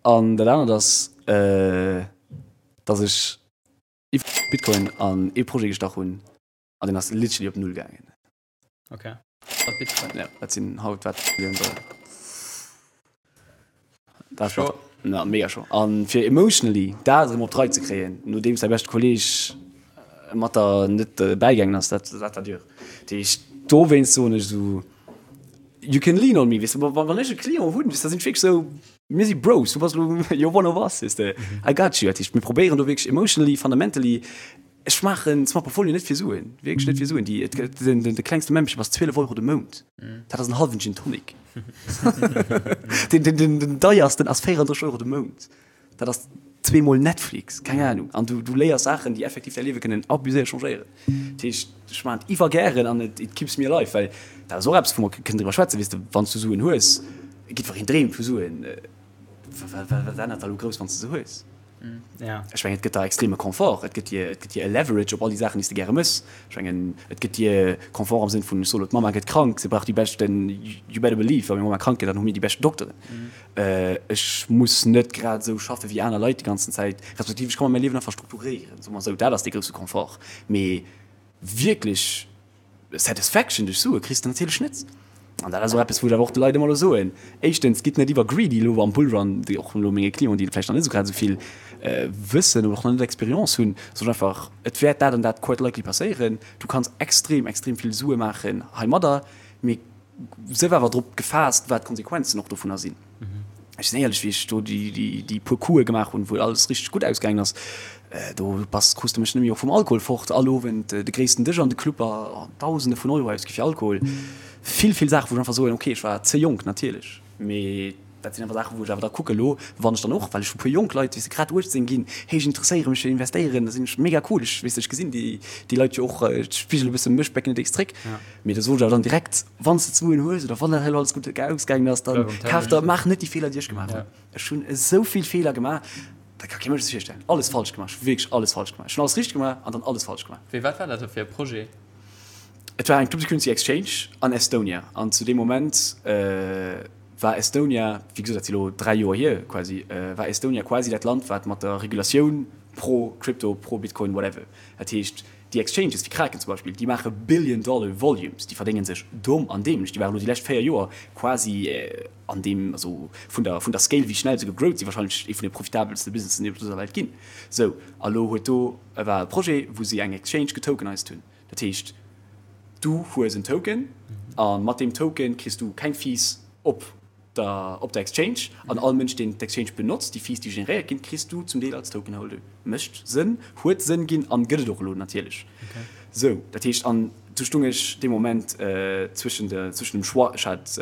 An dat anert ass, äh, dass ech iwwer Bitcoin an ee Projet gestach hunn an deen ass literally op Null gaangen. Okay. Mat Bitcoin. Ja, dat sinn haut wat Millioun Dollar. Dat Scho. Na, mega scho. An fir emotionally dat erëm op d'Rei ze kréien, nodeems däi beschte Kolleeg mat der net bäigaangen ass, dat dat war dur. Dat heescht, dowéinst soen ech esou, you can lean on me, weess de, wa wann ech e Client hunn, weess de, da sinn ech wierklech esou, mir si Bros, du bass elo, you're one of us, weess de, I got you. Dat heescht, mir probéieren do wierklech emotionally, fundamentally. Ech maachen Smart Portfolio net fir Suen, wierklech net fir Suen. Déi, et gëtt, den, den, de klengste Membership ass 12 Euro de Mount. Dat ass en hallwen Gin Tonic. Den, den, den, den deiersten ass 34 Euro de Mount. Dat ass zweemol Netflix, keng Ahnung. An du, du léiers Saachen, déi effektiv däi Liewe kënnen abuséiert changéieren. Dat heescht, ech maachen et iwwer gären an et, it keeps me alive, well dat ass och eppes, wou mer kënnen driwwer schwätzen, weess de, wann s du Suen hues, jiddwereen dreemt vu Suen. Wat, wat, wat ännert da lo grouss, wann s de se hues? Ja. Ech mengen, et gëtt der extreme Confort, et gëtt dir, et gëtt dir e Leverage op all déi Saachen, déi s de gäre mëss. Ech mengen, et gëtt dir Confort am Sënn vun, ech soe lo, d'Mamma gëtt krank, se brauch déi beschten, you better believe, wa meng Mamma krank gëtt, dann hu mir déi beschten Dokteren. Ech muss net grad esou schaffe wéi aner Leit déi ganzen Zäit, respektiv ech ka mer mäi Liewen einfach strukturéieren, soe mer esou. Dat ass dee grousse Confort. Mee wierklech Satisfaction duerch Sue kriss de natierlech net. An dat ass och eppes, wou ech awer och de Leit ëmmer elo soen, Éischtens, gitt net iwwer greedy elo am Bullrun, déi och elo menge Clienten, déi vläicht nach net esou grad esou vill wëssen oder och nach net Experience hunn, soen ech einfach, et wäert dat an dat quite likely passéieren. Du kanns extrem, extrem vill Sue maachen heimadder, mee sief awer drop gefaasst, wat d'Konsequenzen och dovunner sinn. Ech sinn éierlech, wéi ech do déi puer Coupe gemaach hunn, wou alles richteg gutt ausgaangen ass, do bass, krus de mech net méi och vum Alkohol fort. All Owend de gréissten Dësch an de Club a Dausende vun Euro ausgi fir Alkohol. Vill, vill Saachen, wou ech einfach soen, okay, ech war ze jonk natierlech, mee dat sinn einfach Saachen, wou ech awer da kucke lo, wann ech dann och, well ech hu puer jonk Leit, weess de, grad 18 ginn, hey, ech interesséiere mech fir Investéieren, da sinn ech mega cool, ech, weess de, ech gesinn déi, déi Leit jo och, ech spigele e bësse mech back in the days zréck. Mee da soen ech awer dann direkt, Wann s de d'Suen hues oder wann dat hei elo alles gutt ausgaangen ass, dann kaf der, maach net déi Feeler, déi ech gemaach hunn. Ech hunn esou vill Feeler gemaach, dat ka kee Mënsch sech virstellen. Alles falsch gemaach, ech hu wierklech alles falsch gemaach. Ech hunn alles richteg gemaach an dann alles falsch gemaach. Wéi, wat war dat da fir e Projet? Et war eng Cryptocurrency Exchange an Estonia an zu deem Moment war Estonia, wéi gesot, dat si elo 3 Joer hier quasi, war Estonia quasi dat Land, wat mat der Regulatioun pro Crypto, pro Bitcoin, whatever, dat heescht, Déi Exchanges wéi Kraken zum Beispill, déi maache Billion Dollar Volumes, déi verdénge sech domm an dämlech. Déi waren elo déi lescht 4 Joer quasi an deem, also vun der, vun der Scale wéi schnell se gegrowt sinn, wahrscheinlech ee vun de profitabelste Businessen déi op dëser Welt ginn. Sou, a lo huet do, war e Projet wou si eng Exchange getokenized hunn. Dat heescht, du hues en Token a mat deem Token kriss du keng Fees op der op der Exchange an all Mënsch deen d'Exchange benotzt, déi Fees déi generéiert ginn, kriss du zum Deel als Token Holder. Mécht Sënn, huet Sënn ginn an gëtt et och elo natierlech. Sou, dat heescht an du stung ech dee Moment zwëschen de zwëschen dem Choix, ech hat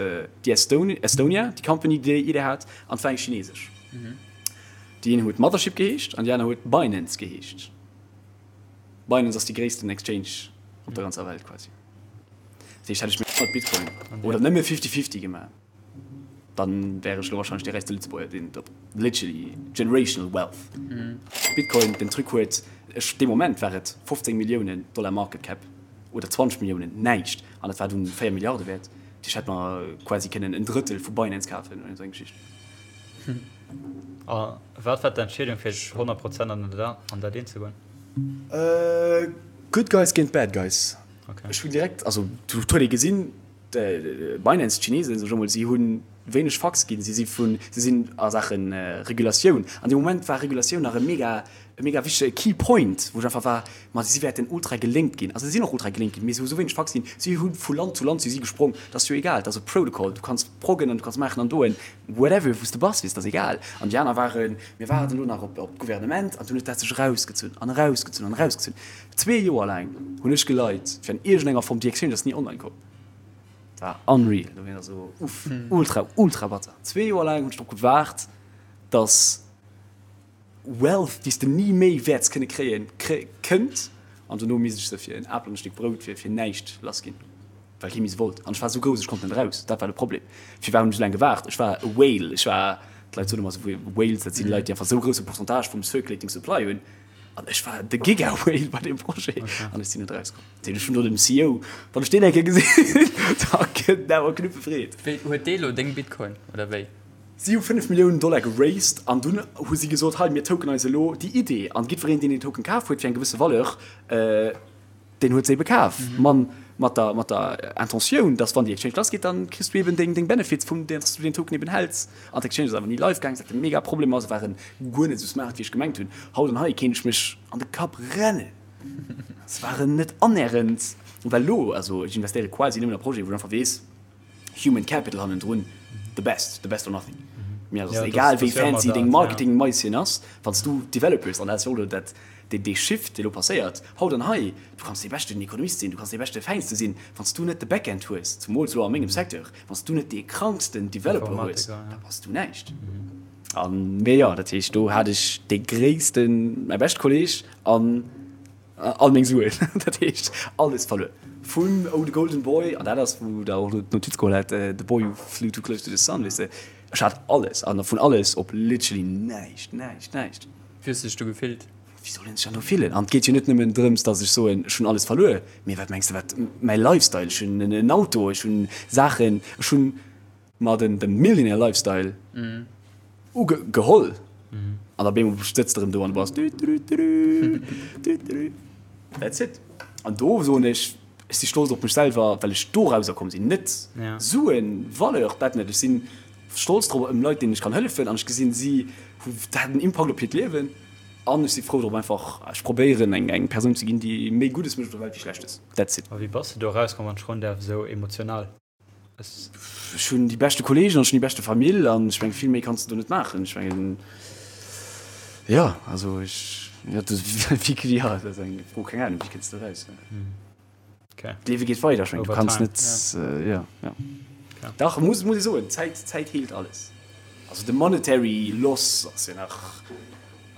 déi Estone Estonia, déi Company déi déi Idee hat an et war eng chinesesch. Déi een huet Mothership geheescht an déi aner huet Binance geheescht. Binance ass déi gréissten Exchange op der ganzer Welt quasi. Dat heescht, hätt ech méi mat Bitcoin oder nëmme Fifty-Fifty gemaach, dann wär ech elo wahrscheinlech dee räichste Lëtzebuerger, deen et op literally generational wealth. Bitcoin, den Truc huet, ech, dee Moment war et 15 Milliounen Dollar Market Cap oder 20 Milliounen, näischt, an et war dunn 4 Milliarde wäert. Dat heescht, hätt mer quasi kënnen en Drëttel vu Binance kafen oder esou eng Geschicht. A wat war d'Entscheedung fir 100 Prozent an dat eent ze goen? Good guys géint bad guys. Ech hunn direkt, also do huet ee gesinn, Binance, d'Chinesen, sag ech emol, si hu wéineg Fucks ginn. Si si vun, si sinn a Saache Regulatioun. An deem Moment war Regulatioun nach e mega, e mega wichtege Key Point, wou ech einfach war, ma si wäerten ultra gelénkt ginn. Also si sinn och ultra gelénkt ginn, mee si hu sou wéineg Fucks ginn. Si hu vu Land zu Land si si gesprong. Dat ass jo egal, dat ass e Protocol, du kanns proggen an du kanns maachen an doen, whatever, wou s de bass, weess, dat ass egal. An déi aner waren, mir waarden elo nach op d'Gouvernement. An dunn huet dat sech erausgezunn an erausgezunn an erausgezunn. Zwee Joer laang hunn ech geleit fir an iergendenger Form, déi Exchange ass ni online komm. Dat war unreal, do war esou uff, ultra, ultra batter. Zwee Joer laang hunn ech drop gewaart, dass Wealth, déi s de ni méi wäerts kënne kréien, kënnt. An dono misst ech se fir en Apel an e Stéck Brout fir fir näischt lass ginn, well kee méi se wollt. An ech war esou grouss, ech konnt net eraus. Dat war de Problem. Firwat hunn ech esou laang gewaart? Ech war e Whale. Ech war, d'Leit soen ëmmer esou, Whales, dat sinn Leit, déi einfach esou grousse Pourcentage vum circulating supply hunn. An ech war de Giga-Whale bei deem Projet an ech sinn net erauskomm. Dat heescht, ech hunn do dem CEO, wann ech deen eng Kéier gesinn, da kënnt en awer Knuppe Freed. Wéi, huet dee lo deng Bitcoin oder wéi? Si hu 5 Milliounen Dollar geraced an dunn hu si gesot, hei mir tokenise elo déi Idee an jiddwereen deen deen Token kaf huet fir eng gewësse Valeur, Deen huet se ebe kaf, man mat der, mat der Intentioun, dass wann déi Exchange lass geet, dann kriss du eben deng, deng Benefits vum, dass du deen Token eben häls. An d'Exchange ass awer ni live gaang, wat e mega Problem ass, waren guer net esou smart wéi ech gemengt hunn. Haut an hei kéint ech mech an de Kapp rennen, se waren net annähernd, well elo, also ech investéiere quasi nëmmen a Projeten, wou ech einfach weess, Human Capital hannendrun, the best, the best or nothing. Mir ass egal wéi fancy deng Marketing-Maisien ass, wann s du Developers, an dat ass jo och elo dat, dee Shift, dee elo passéiert haut an hei, du kanns dee beschten Ekonomist sinn, du kanns dee beschte Fäinste sinn, wann s du net de Backend hues, zumools elo a mengem Secteur, wann s du net dee kranksten Developer hues, da bass du näischt. An, mee jo, dat heescht, do hat ech dee gréissten, mäi beschte Kolleeg an all meng Suen, dat heescht alles verluer. Vun Oh the Golden Boy, an dat ass wou der och d'Notiz geholl hat, The Boy Who Flew Too Close to the Sun, weess de, ech hat alles an vun alles op literally näischt, näischt, näischt. Wéi hues de dech do gefillt? Wéi soll een sech dann do fillen? An et geet jo net nëmmen drëms, datt ech soen, ech hunn alles verluer, mee wat mengs de wat mäi Lifestyle, ech hunn en Auto, ech hunn Saachen, ech hunn mer den de Millionaire Lifestyle ugeholl an op eemol sëtz de erëm do an du bass düdüdüdü, düdüdü, that's it. An do soen ech, ech si stolz op mech selwer, well ech dorauser komm sinn. Net Suen, Valeur, dat net, ech si stolz drop ëm Leit deenen ech kann hëllefen an ech gesinn si hu dat hat en Impakt op hiert Liewen an ech si frou drop einfach, ech probéieren eng eng Persoun ze ginn déi méi Guddes mécht op der Welt wéi Schlechtes, that's it. A wéi bass de do erauskomm, wann ech froen däerf, esou emotional? Ech hunn déi beschte Kolleegen an ech hunn déi beschte Famill an ech mengen, vill méi kanns de do net maachen. Ech mengen, jo, also ech, jo, dat wéi, jo, dat ass eng Fro, keng Ahnung, wéi kënns de eraus? D'Liewe geet weider, ech mengen, du kanns net, jo, jo. Dach, muss, muss ee soen, d'Zäit, d'Zäit heelt alles. Also de monetary loss ass jo nach,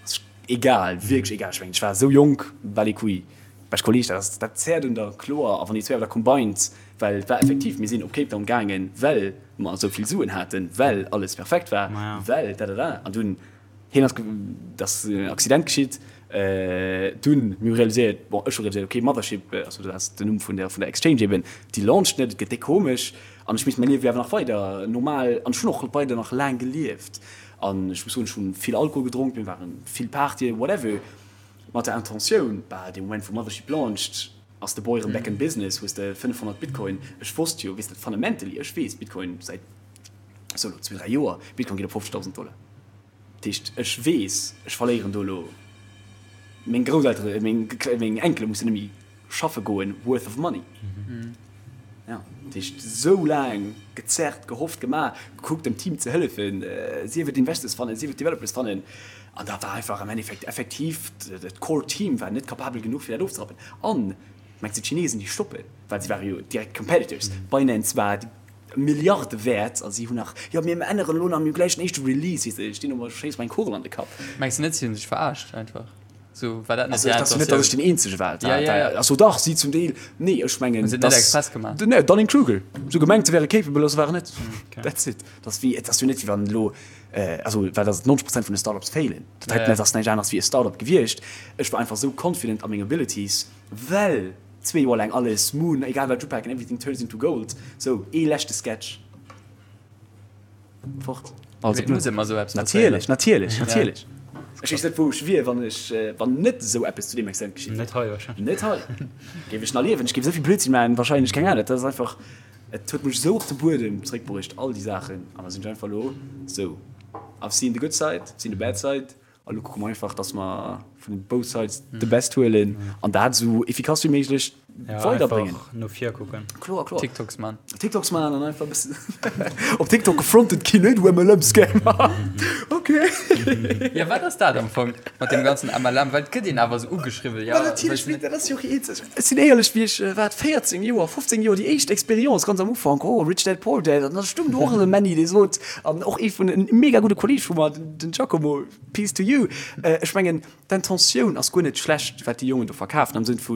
ass egal, wierklech egal. Ech mengen, ech war esou jonk, bal les couilles. Bescht Kolleg, dat ass, dat zäert un der, kloer. A wann déi zwéi awer da combined, well et war effektiv, mir sinn op Cape Town gaangen, well mer esou vill Suen haten, well alles perfekt war, well dadada. An dunn, hien ass, et ass en Accident geschitt, dunn, mir hu realiséiert, bon, ech hu realiséiert, okay, Mothership, also dat ass den Numm vun der, vun der Exchange eben, déi launcht net, et gëtt déck komesch. An ech misst mäi Liewe jo awer nach weider normal, an ech hunn och weider nach laang gelieft. An ech muss soen, ech hu vill Alkohol gedronk, mir ware vill Partyen, whatever. Mat der Intentioun, bah, dee Moment wou Mothership launcht, ass de Boy erëm back in business, hues de 500 Bitcoin. Ech wosst jo, weess de, fundamentally, ech weess, Bitcoin säit sou elo zwee, dräi Joer, Bitcoin geet op 50.000 Dollar. Dat heescht, ech weess, ech verléieren do elo, meng Grousseltere, meng, meng Enkele mussen net méi schaffe goen, worth of money. Ja, dat heescht, sou laang gezerrt, gehofft, gemaach, gekuckt dem Team ze hëllefen, sief et Investors fannen, sief et Developers fannen, an da war einfach am Endeffekt effektiv dat Core Team war net capabel genuch fir dat ofzerappen. An, mengs de d'Chinesen déi stoppen, well si ware jo direkt Competitors, Binance war Milliarde wäert a si hunn nach, jo mir änneren elo nach, mir hu gläich den éischte Release, weess de, ech stinn do, schéiss mer eng Kugel an de Kapp. Mengs de net si hunn sech verarscht einfach? So, war dat net Also, et ass jo net, datt ech den Eenzege war. Ja, ja, ja. Also dach, si zum Deel. Nee, ech mengen, Hunn se et net express gemaach? Nee, Dunning-Kruger. Se hu gemengt, se wäre capable, a se waren net. Okay. That's it. Dat ass wéi, et ass jo net, wéi wann elo, also, well datt 90 Prozent vun de Startups failen. Dat heiten, dat ass näischt aneres wéi e Startup gewiescht. Ech war einfach esou confident a meng Abilities, well zwee Joer laang alles Moon, egal wat ech upaken, everything turns into gold. Sou, ee leschte Sketch. Fort. Also, muss ëmmer esou eppes natierlech, natierlech, natierlech. Ech weess net, wou ech wier, wann ech, wann net esou eppes zu deem Extent geschitt wier. Net hei wahrscheinlech. Net hei. Géif ech nach liewen? Ech géif esou vill Blödsinn maachen, wahrscheinlech, keng Ahnung. Dat ass einfach, et huet mech esou op de Buedem zeréckbruecht, all déi Saachen. An da sinn ech einfach elo esou, I've seen the good side, I've seen the bad side. A lo kucke mer einfach, dass mer vun both sides the best huelen an dat esou efficace wéi méiglech weiderbréngen. Einfach no vir kucken. Kloer, kloer. TikToks man. TikToks man an einfach e bëssen op TikTok gefrontet ginn, hey du MLM-Scammer. Okay. Ja, wat ass dat am Fong mat deem ganzen MLM? Well et gëtt een awer esou ugeschriwwen, ja. Ma natierlech, mee dat ass jo och eenzeg. Ech sinn éierlech, wéi ech, wat, 14 Joer, 15 Joer, déi éischt Experience ganz am Ufank, oh, Rich Dad Poor Dad, an da stoung do och esou e Männi, dee sot, an och ee vun, en mega gudde Kolleeg vu mer, Den Giacomo, peace to you. Ech mengen, d'Intentioun ass guer net schlecht, wat déi Jongen do verkafen, am Sënn vu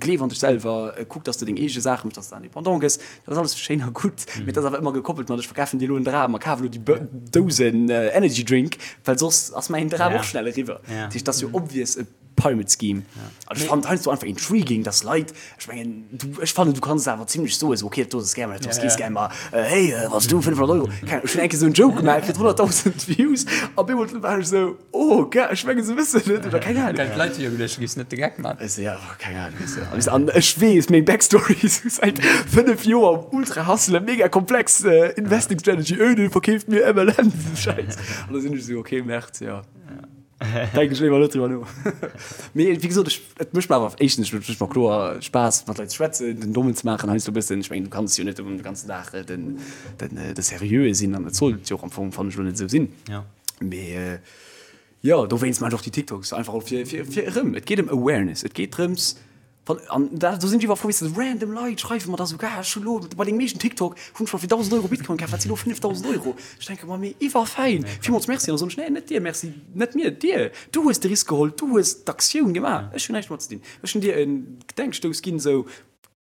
gleef an dech selwer, kuck, dass de deng eege Saache méchs, dass de indépendant gëss. Dat ass alles schéin a gutt, mee et ass awer ëmmer gekoppelt mat, ech verkafen dir elo en Dram a kaf elo déi Dousen Energy Drink, well soss ass mäin Dram och schnell eriwwer. Dat heescht, et ass jo obvious e Pyramid Scheme. An ech fannen et heiansdo einfach intriguing, dass Leit, ech mengen, du, ech fannen, du kanns et awer zimlech soen, esou, okay, dat do ass e Scam, dat do ass kee Scam, ma hey, wann s du 500 Euro, keng Ahnung, ech hunn eng Kéier esou en Joke gemaach, kritt 100.000 Views, a op eemol war ech esou, oh, ge, ech mengen, se wëssen net, oder keng Ahnung. Well d'Leit hu jo geduecht, du giffs net de Geck man. Ech sou, ja, keng Ahnung, weess de. An ech weess, meng Backstory, esou säit 5 Joer um ultra hustlen, mega komplex Investing Strategy, öh, dee verkeeft mir MLM, esou Schäiss. An da sinn ech esou, okay, Merde, jo. Denken ech léiwer net driwwer no. Mee wéi gesot, ech, et mécht mer awer éischtens, et mécht mer kloer Spaass mat Leit ze schwätzen, den Dommen ze maachen heiansdo e bëssen. Ech mengen, du kanns jo net de ganzen Dag den, den, de Seriöe sinn an et sollt jo och am Fong, fannen ech, elo net esou sinn. Mee jo, dowéinst maachen ech och déi TikToks, einfach och fir, fir, fir erëm, et geet ëm Awareness, et geet drëms, Wann, an da, do sinn ech iwwer frou, weess de, random Leit schreiwe mer da sougar, ech hu lo bei dengem éischten TikTok hunn ech mer fir 1.000 Euro Bitcoin kaf, wat si lo 5.000 Euro? Ech denke mer, mee iwwerfäin, villmools Merci. An da soen ech, nee, net dir Merci, net mir, dir, du hues de Risk geholl, du hues d'Aktioun gemaach, ech hunn näischt domat ze dinn. Ech hunn dir e Gedenkstouss ginn, esou,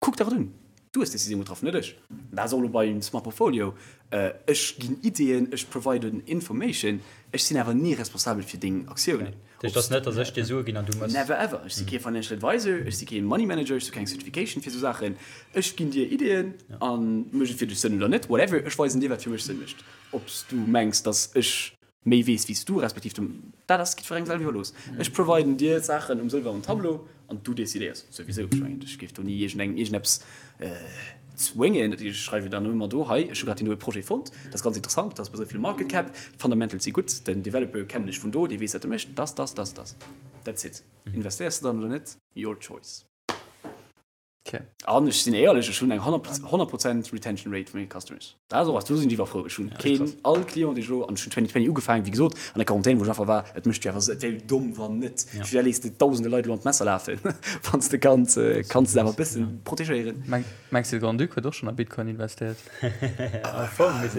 kuck der et un, du hues d'Decisioun getraff, net ech. Dat ass och elo beim Smart Portfolio, ech ginn Ideeën, ech providen Information, ech sinn awer ni responsabel fir deng Aktiounen. Dat heescht, et ass net, datt ech dir Sue ginn an du mëss. Never ever. Ech si kee Financial Advisor, ech si kee Money Manager, ech hu keng Certification fir esou Saachen. Ech ginn dir Ideeën a mécht et fir dech Sënn oder net, whatever. Ech weisen dir, wat fir mech Sënn mécht. Ob s du mengs, datt ech méi weess wéi s du, respektiv du, dat ass jiddwerengem selwer iwwerlooss. Ech providen dir d'Saachen um sëlwernen Tableau an du decidéiers souwisou. Ech mengen, ech géif do ni iergendengem iergendeppes Zwéngen, ech schreiwe dann ëmmer do, hei, ech hu grad deen doe Projet fonnt, dat ass ganz interessant, dat ass bei esou vill Market Cap, d'Fundamentals si gutt, den Developer kennen ech vun do, dee weess wat e mécht, dass, dass, dass, dass. That's it. Investéiers de dann oder net? Your choice. Okay. An ech sinn éierlech, ech hunn eng 100 Prozent Retention Rate vu menge Customers. Dat ass och eppes, do sinn ech iwwerfrou. Ech hunn keen, all Client, dee ech elo, an ech hunn 2020 ugefaangen, wéi gesot, an der Quarantän, wou ech einfach war, et mécht jo awer, et wär jo domm, wann net. Firwat léiss de dausende Leit elo an d'Messer lafen, wann s de kanns, kanns se awer e bëssen protegéieren. Mengs de, de Grand-Duc huet och schonn a Bitcoin investéiert?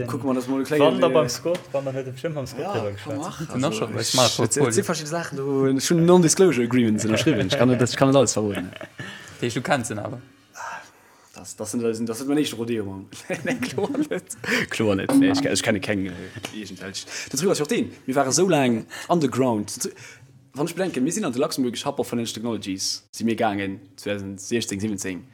Kucke mer, dass mer e klengen. Wann da beim Scott, wann dann huet e bestëmmt mam Scott driwwer geschwat. Huet en och scho bei Smart Portfolio. Et si verschidde Saachen do, ech hunn Non-Disclosure Agreements ënnerschriwwen, ech kann net, ech kann net alles verroden. Dat heescht, du kenns en awer? Das, das sind, das sind mein éischte Rodeo mam. Nee, kloer net. Kloer net. Nee, ech, ech kenne keng iergendwelch. Den Truc ass jo och deen, mir ware sou laang underground. Wann ech bedenken, mir sinn an de Luxembourgish Hub of Financial Technologies si mir gaangen 2016, 17,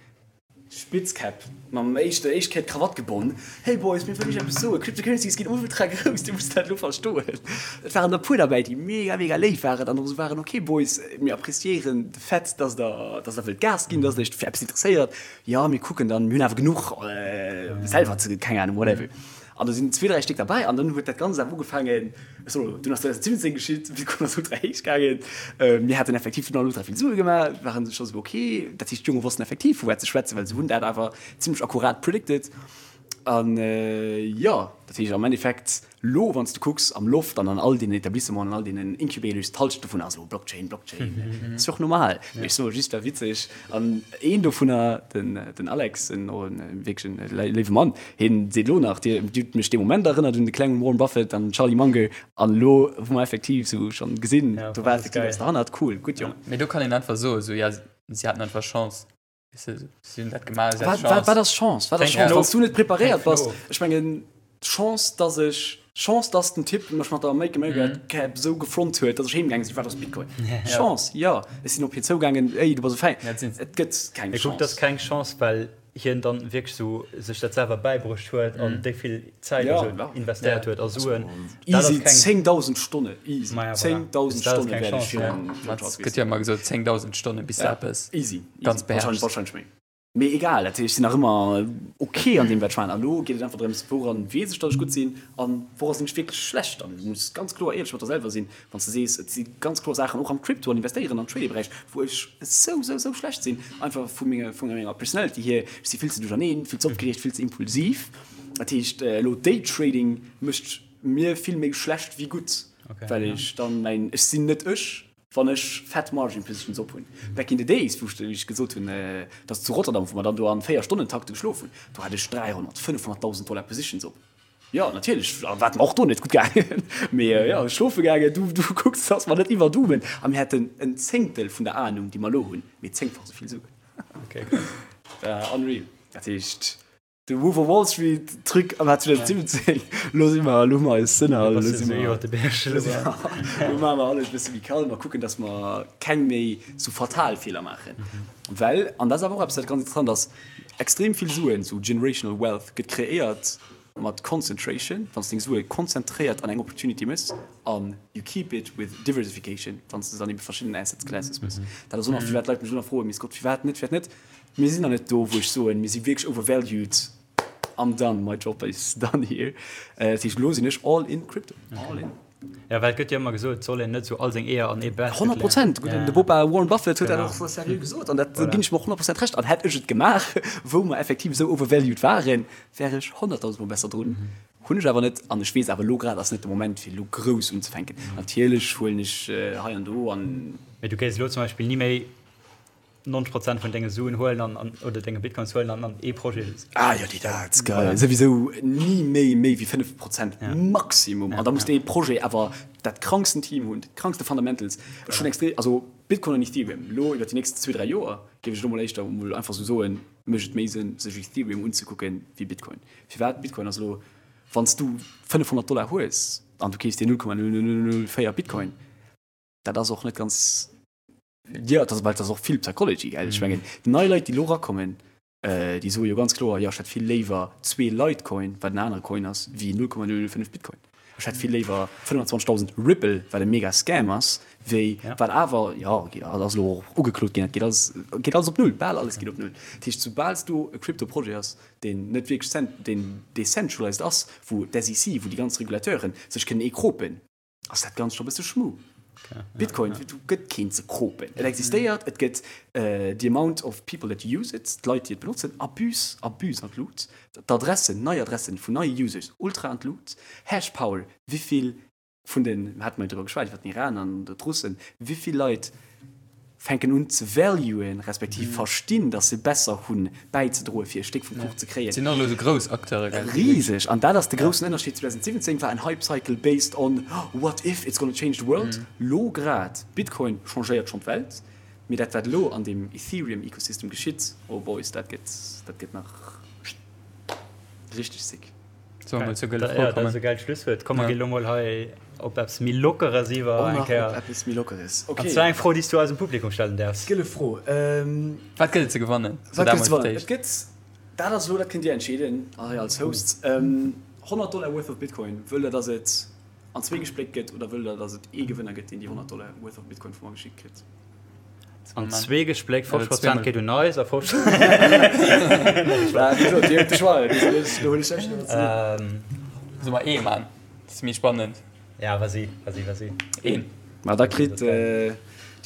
Spitzkäpp, mam éischte, éischt Kéier d'Krawatt gebonn, Hey Boys, mir wëllen iech eppes soen, Cryptocurrencies ginn ultra grouss, dir musst dat elo verstoen. Et waren der e puer derbäi, déi mega, mega léif waren an och esou waren, Ok Boys, mir appreciéieren de Fait, dass der, dass der wëllt Gas ginn, dass der iech fir eppes interesséiert. Jo, mir kucken dann, mir hunn awer genuch selwer ze, keng Ahnung, whatever. An do sinn zwee, dräi Stéck derbäi an dann huet dat Ganzt awer ugefaangen, ech soen elo, dunn ass 2017 geschitt, Bitcoin ass ultra héich gaangen, mir haten effektiv dunn all ultra vill Sue gemaach, waren scho sou ok, dat heescht d'Jonge wossten effektiv vu wat se schwätzen, well se hunn dat awer zimlech akkurat predicted. An jo, dat heescht am Endeffekt, lo wann s de kucks am Loft an an all deenen Etablissementen, an all deenen Incubators, d'Halschent dovun ass elo Blockchain, Blockchain. Dat ass jo och normal. Mee ech soe just, war witzeg. An een dovunner, den, den Alex, en och en wierklech en léiwe Mann, hien seet elo nach, Dir hutt mech dee Moment erënnert un de klengen Warren Buffett an den Charlie Munger. An elo hu mer effektiv esou schonn gesinn, do war effektiv eppes derhannert. Cool, gutt Jong. Mee do kann een einfach soen, esou, ja, si haten einfach Chance. Si hunn dat gemaach, si haten Chance. Wat ass Chance? Wat ass Chance? Wann s du net preparéiert bass, ech mengen, Chance, dass ech, Chance, dass den Typ mech mat der Make America Cap esou gefront huet, dass ech heem gaange sinn, wat ass Bitcoin? Chance, jo. Ech sinn op hien zougaangen, Ey, du bass e Fäin. Et gëtt keng Chance. Kuck, dat ass keng Chance, well hien dann wierklech sou sech dat selwer bäibruecht huet an déi vill Zäit a sou investéiert huet a Suen. Easy 10.000 Stonne, easy 10.000 Stonne wäert ech virun Charles Gëtt jo ëmmer gesot 10.000 Stonne bis de eppes easy ganz beherrschs. Wahrscheinlech méi. Mee egal, dat heescht, ech sinn nach ëmmer ok an deem wat ech maachen. An elo geet et einfach drëms, wouran weess ech, datt ech gutt sinn an woura sinn ech wierklech schlecht. An du muss ganz kloer éierlech mat der selwer sinn, wann s de sees, et si ganz kloer Saachen och am Crypto an Investéieren an Trading-Beräich, wou ech esou, esou, esou schlecht sinn, einfach vu menger, vu menger Personality hier. Ech si vill ze duercherneen, vill ze opgereegt, vill ze impulsiv. Dat heescht, elo Daytrading mécht mir vill méi schlecht wéi gutt, well ech dann mäin, ech sinn net ech, wann ech fett Margin Positions op hunn. Back in the days, wou ech gesot hunn, dass zu Rotterdam, wou mer dann do an 4 Stonnentakte geschlof hunn, do hat ech 300, 500.000 Dollar Positions op. Jo, natierlech war et mer och do net gutt gaangen. Mee jo, schlofe gaangen, du, du kucks, dass mer net iwwerdoomen. A mir hätten en Zéngtel vun der Anung, déi mer elo hunn, mee zéngfach esou vill Suen. Okay, krass. War unreal. Dat heescht, de Wolf of Wall Street Truc am Jahr 2017, elo si mer, elo hu mer eis Sënner, elo si mer, iwwer de Berg elo maache mer alles e bësse méi kalm a kucken, dass mer keng méi sou fatal Feeler maachen. Well, an dat ass awer och eppes, wat ganz interessant ass, Extrem vill Suen, sou generational wealth, gëtt kreéiert mat concentration, wann s deng Sue konzentréiert an eng Opportunity mëss, an you keep it with diversification, wann s de se an ebe verschiddenen Assets classes mëss. Dat ass och nach, firwat d'Leit mech elo nach froen, Mee Scott, firwat net, firwat net? Mir sinn nach net do, wou ech soen, mir si wierklech overvalued, I'm done, my job is done here. Dat heescht, elo sinn ech all in crypto, all in. Ja, well et gëtt jo ëmmer gesot, et soll een net esou all seng Eeër an ee Basket leeën. 100 Prozent! De Bopa Warren Buffett huet dat och sou seriö gesot an dat ginn ech em och 100 Prozent Recht. An hätt ech et gemaach, wou mer effektiv esou overvalued waren, wär ech 100.000 mol besser drun. Hunn ech awer net an ech weess awer elo grad ass net de Moment fir elo grouss unzefänken. Natierlech huelen ech hei an do an. Mee du kéis elo zum Beispill ni méi 90 Prozent vun denge Suen huelen an, an oder denge Bitcoins huelen an an ee Projet. Ah jo, déi dat geil. Souwisou ni méi méi wéi 5 Prozent Maximum. An da muss dee Projet awer dat kranksten Team hunn, déi krankste Fundamentals. Ech hunn extrem, also Bitcoin an Ethereum elo iwwer déi nächst zwee, dräi Joer géif ech elo mol éischter mol einfach sou soen, mécht et méi Sënn sech Ethereum unzekucken wéi Bitcoin. Firwat? Bitcoin ass elo, wann s du 500 Dollar hues an du keefs dir 0,0004 Bitcoin, dat ass och net ganz Jo, dat ass, well dat ass och vill Psychology, gell? Ech mengen, déi nei Leit, déi elo erakommen, déi soe jo ganz kloer, jo, ech hätt vill léiwer zwee Litecoin, wat en anere Coin ass, wéi 0,005 Bitcoin. Ech hätt vill léiwer 25.000 Ripple, wat e mega Scam ass, wéi, wat awer, jo, dat ass elo och ugeklot ginn, dat geet alles, geet alles op Null, bal alles geet op Null. Dat heescht, soubal s du e Crypto-Projet ass, deen net wierklech cent, deen decentralized ass, wou d'SEC, wou déi ganz Regulateuren sech kënnen eekropen, ass dat Ganzt scho bësse schmu. Bitcoin, do gëtt keen ze kropen. Et existéiert, et gëtt the amount of people that use it, d'Leit, déi et benotzen, abus, abus an d'Lut. D'Adressen, nei Adressen vun neie Users, ultra an d'Lut. Hashpower, wéivill vun den, hate mer jo driwwer geschwat, iwwer den Iran an d'Russen, wéivill Leit fänken un ze valuen, respektiv verstinn, datt se besser hunn bäizedroen, fir e Stéck vum Kuch ze kréien. Et sinn och elo esou grouss Acteure, gell? Riseg! An dat ass de groussen Ënnerscheed, 2017 war en Hype Cycle based on what if it's gonna change the world. Lo grad, Bitcoin changéiert schonn d'Welt, mee dat wat elo an deem Ethereum Ecosystem geschitt, oh boys, dat gëtt, dat gëtt nach richteg sick. Solle mer zur gëlle Fro kommen? Dat ass e gäilt Schlusswuert. Komm, mer ginn elo mol hei op eppes méi Lockeres iwwer. Och nach op eppes méi Lockeres. Okay. An zwar eng Fro, déi s du eisem Publikum stellen däerfs. Gëlle Fro. Wat gëtt et ze gewannen? Wat gëtt et ze gewannen? Et gëtt, dat ass elo, dat kënnt Dir entscheeden hei als Hosts, 100 Dollar worth of Bitcoin. Wëllt Der, dass et an zwee gespléckt gëtt oder wëllt Der, dass et ee Gewënner gëtt, deen déi 100 Dollar worth of Bitcoin vu mer geschickt kritt? An zwee gespléckt, 50 Prozent geet un eis a 50. Solle mer ee man? Dat ass méi spannend. Ja, vas-y, vas-y, vas-y. Een. Ma da kritt déi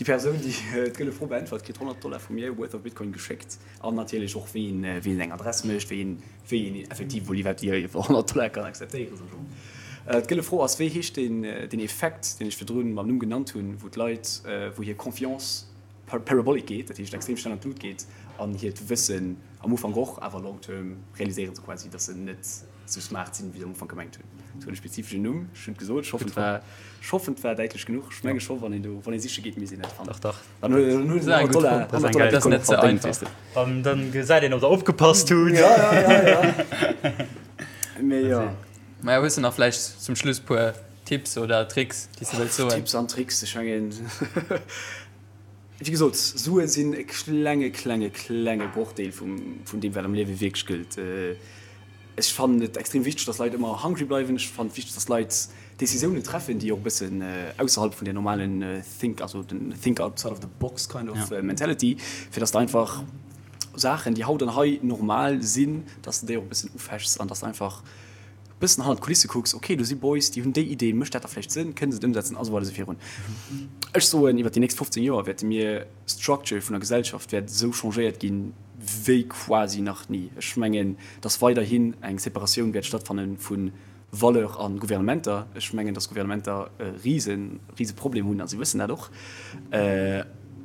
Persoun, déi d'gëlle Fro beäntwert, kritt 100 Dollar vu mir worth of Bitcoin geschéckt. An natierlech och wéi een, wéi een eng Adress mécht, wéi een, wéi een effektiv emol iwwerhaapt déi 100 Dollar kann akzeptéieren, sou genre. D'gëlle Fro ass, wéi heescht deen, deen Effekt, deen ech virdrun mam Numm genannt hunn, wou d'Leit, wou hir Confiance parabolic geet, dat heescht extrem schnell an d'Lut geet, an hiert Wëssen am Ufank och, awer long term realiséiere se quasi, datt se net sou smart sinn, wéi se am Ufank gemengt hunn. Et huet e spezifeschen Numm, ech hunn et gesot, ech hoffen et war, ech hoffen et war däitlech genuch. Ech menge scho, wann een do, wann ee siche geet, misst een et fannen. Dach, dach. Dann huet en 100 Dollar, 100 Dollar Bitcoin och verdéngt, weess de. Dann, dann gesäit een, ob der opgepasst hutt. Ja, ja, ja, ja. Mee jo. Maja, hues de nach vläicht zum Schluss puer Tipps oder Tricks, déi s de wëlls soen? Tipps an Tricks, ech mengen, wéi gesot, Sue sinn e klenge, klenge, klenge Brochdeel vum, vun deem, wat am Liewe wierklech gëllt. Ech fannen et extrem wichteg, dass Leit ëmmer hungry bleiwen. Ech fannen et wichteg, dass Leit Decisiounen treffen, déi och e bëssen ausserhalb vun der normalen think, also den think outside of the box kind of mentality, fir dass de einfach Saachen, déi haut an hei normal sinn, dass de déi och e bëssen ufechs an dass de einfach e bëssen hannert d'Kulisse kucks, ok, do si Boys, déi hunn déi Idee, mécht dat da vläicht Sënn, kënne se et ëmsetzen a sou weider esou virun. Ech soen, iwwer déi nächst 15 Joer wäerte mir d'Structure vun der Gesellschaft wäert esou changéiert ginn, wéi quasi nach ni. Ech mengen, dass weiderhin eng Separatioun wäert stattfanne vu Valeur a Gouvernementer. Ech mengen, dass Gouvernementer e rise, rise Problem hunn, a si wëssen dat och,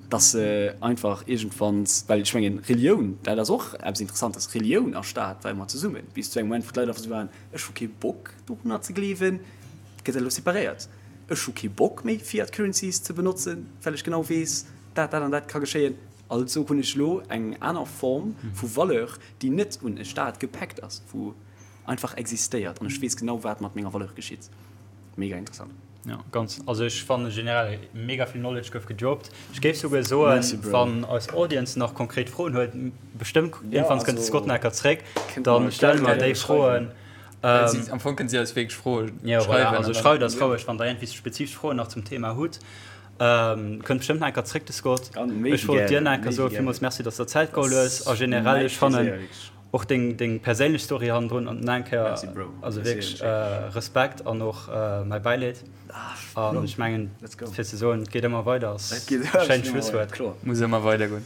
dass se einfach iergendwann, well ech mengen, Relioun, dat ass och eppes Interessantes, Relioun a Staat war ëmmer zesummen, bis zu engem Moment, wou d'Leit einfach esou waren, ech hu kee Bock dorunner ze gleewen, gëtt dat elo separéiert. Ech hu kee Bock méi Fiat Currencies ze benotzen, well ech genau weess, dat, dat an dat ka geschéien. Also hunn ech elo eng aner Form vu Valeur, déi net un e Staat gepäckt ass, wou einfach existéiert an ech weess genau, wat mat menger Valeur geschitt. Mega interessant. Jo, ganz. Also ech fanne generell mega vill Knowledge gouf gedroppt. Ech géif souguer soen, wann eis Audience nach konkret Froen huet, bestëmmt iergendwanns kënnt de Scott nach enker zréck, da stelle mer déi Froen. Am Fong kënnt Dir eis wierklech Froe schreiwen. Also schreift eis roueg, wann der iergendwéi spezifesch Froen nach zum Thema hutt. Kënnt bestëmmt nach enker zréck, de Scott. Ech wollt dir nach enker soen, villmools Merci, dass der Zäit geholl hues. A generell, ech fannen. Och deng deng perséinlech Story hannendrun an nach eng Kéier Merci Bro. also wierklech Respekt an och mäi Bäileed. An ech mengen fir ze soen, et geet ëmmer weider ass e schéint Schlusswuert. Muss ëmmer weider goen.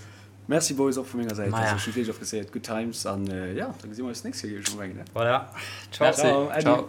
Merci Boys och vu menger Säit. Also ech hunn wierklech appréciéiert. Good times an jo, da gesi mer eis d'nächst Kéier géif ech mol mengen. Voilà. Ciao. Merci. Ciao.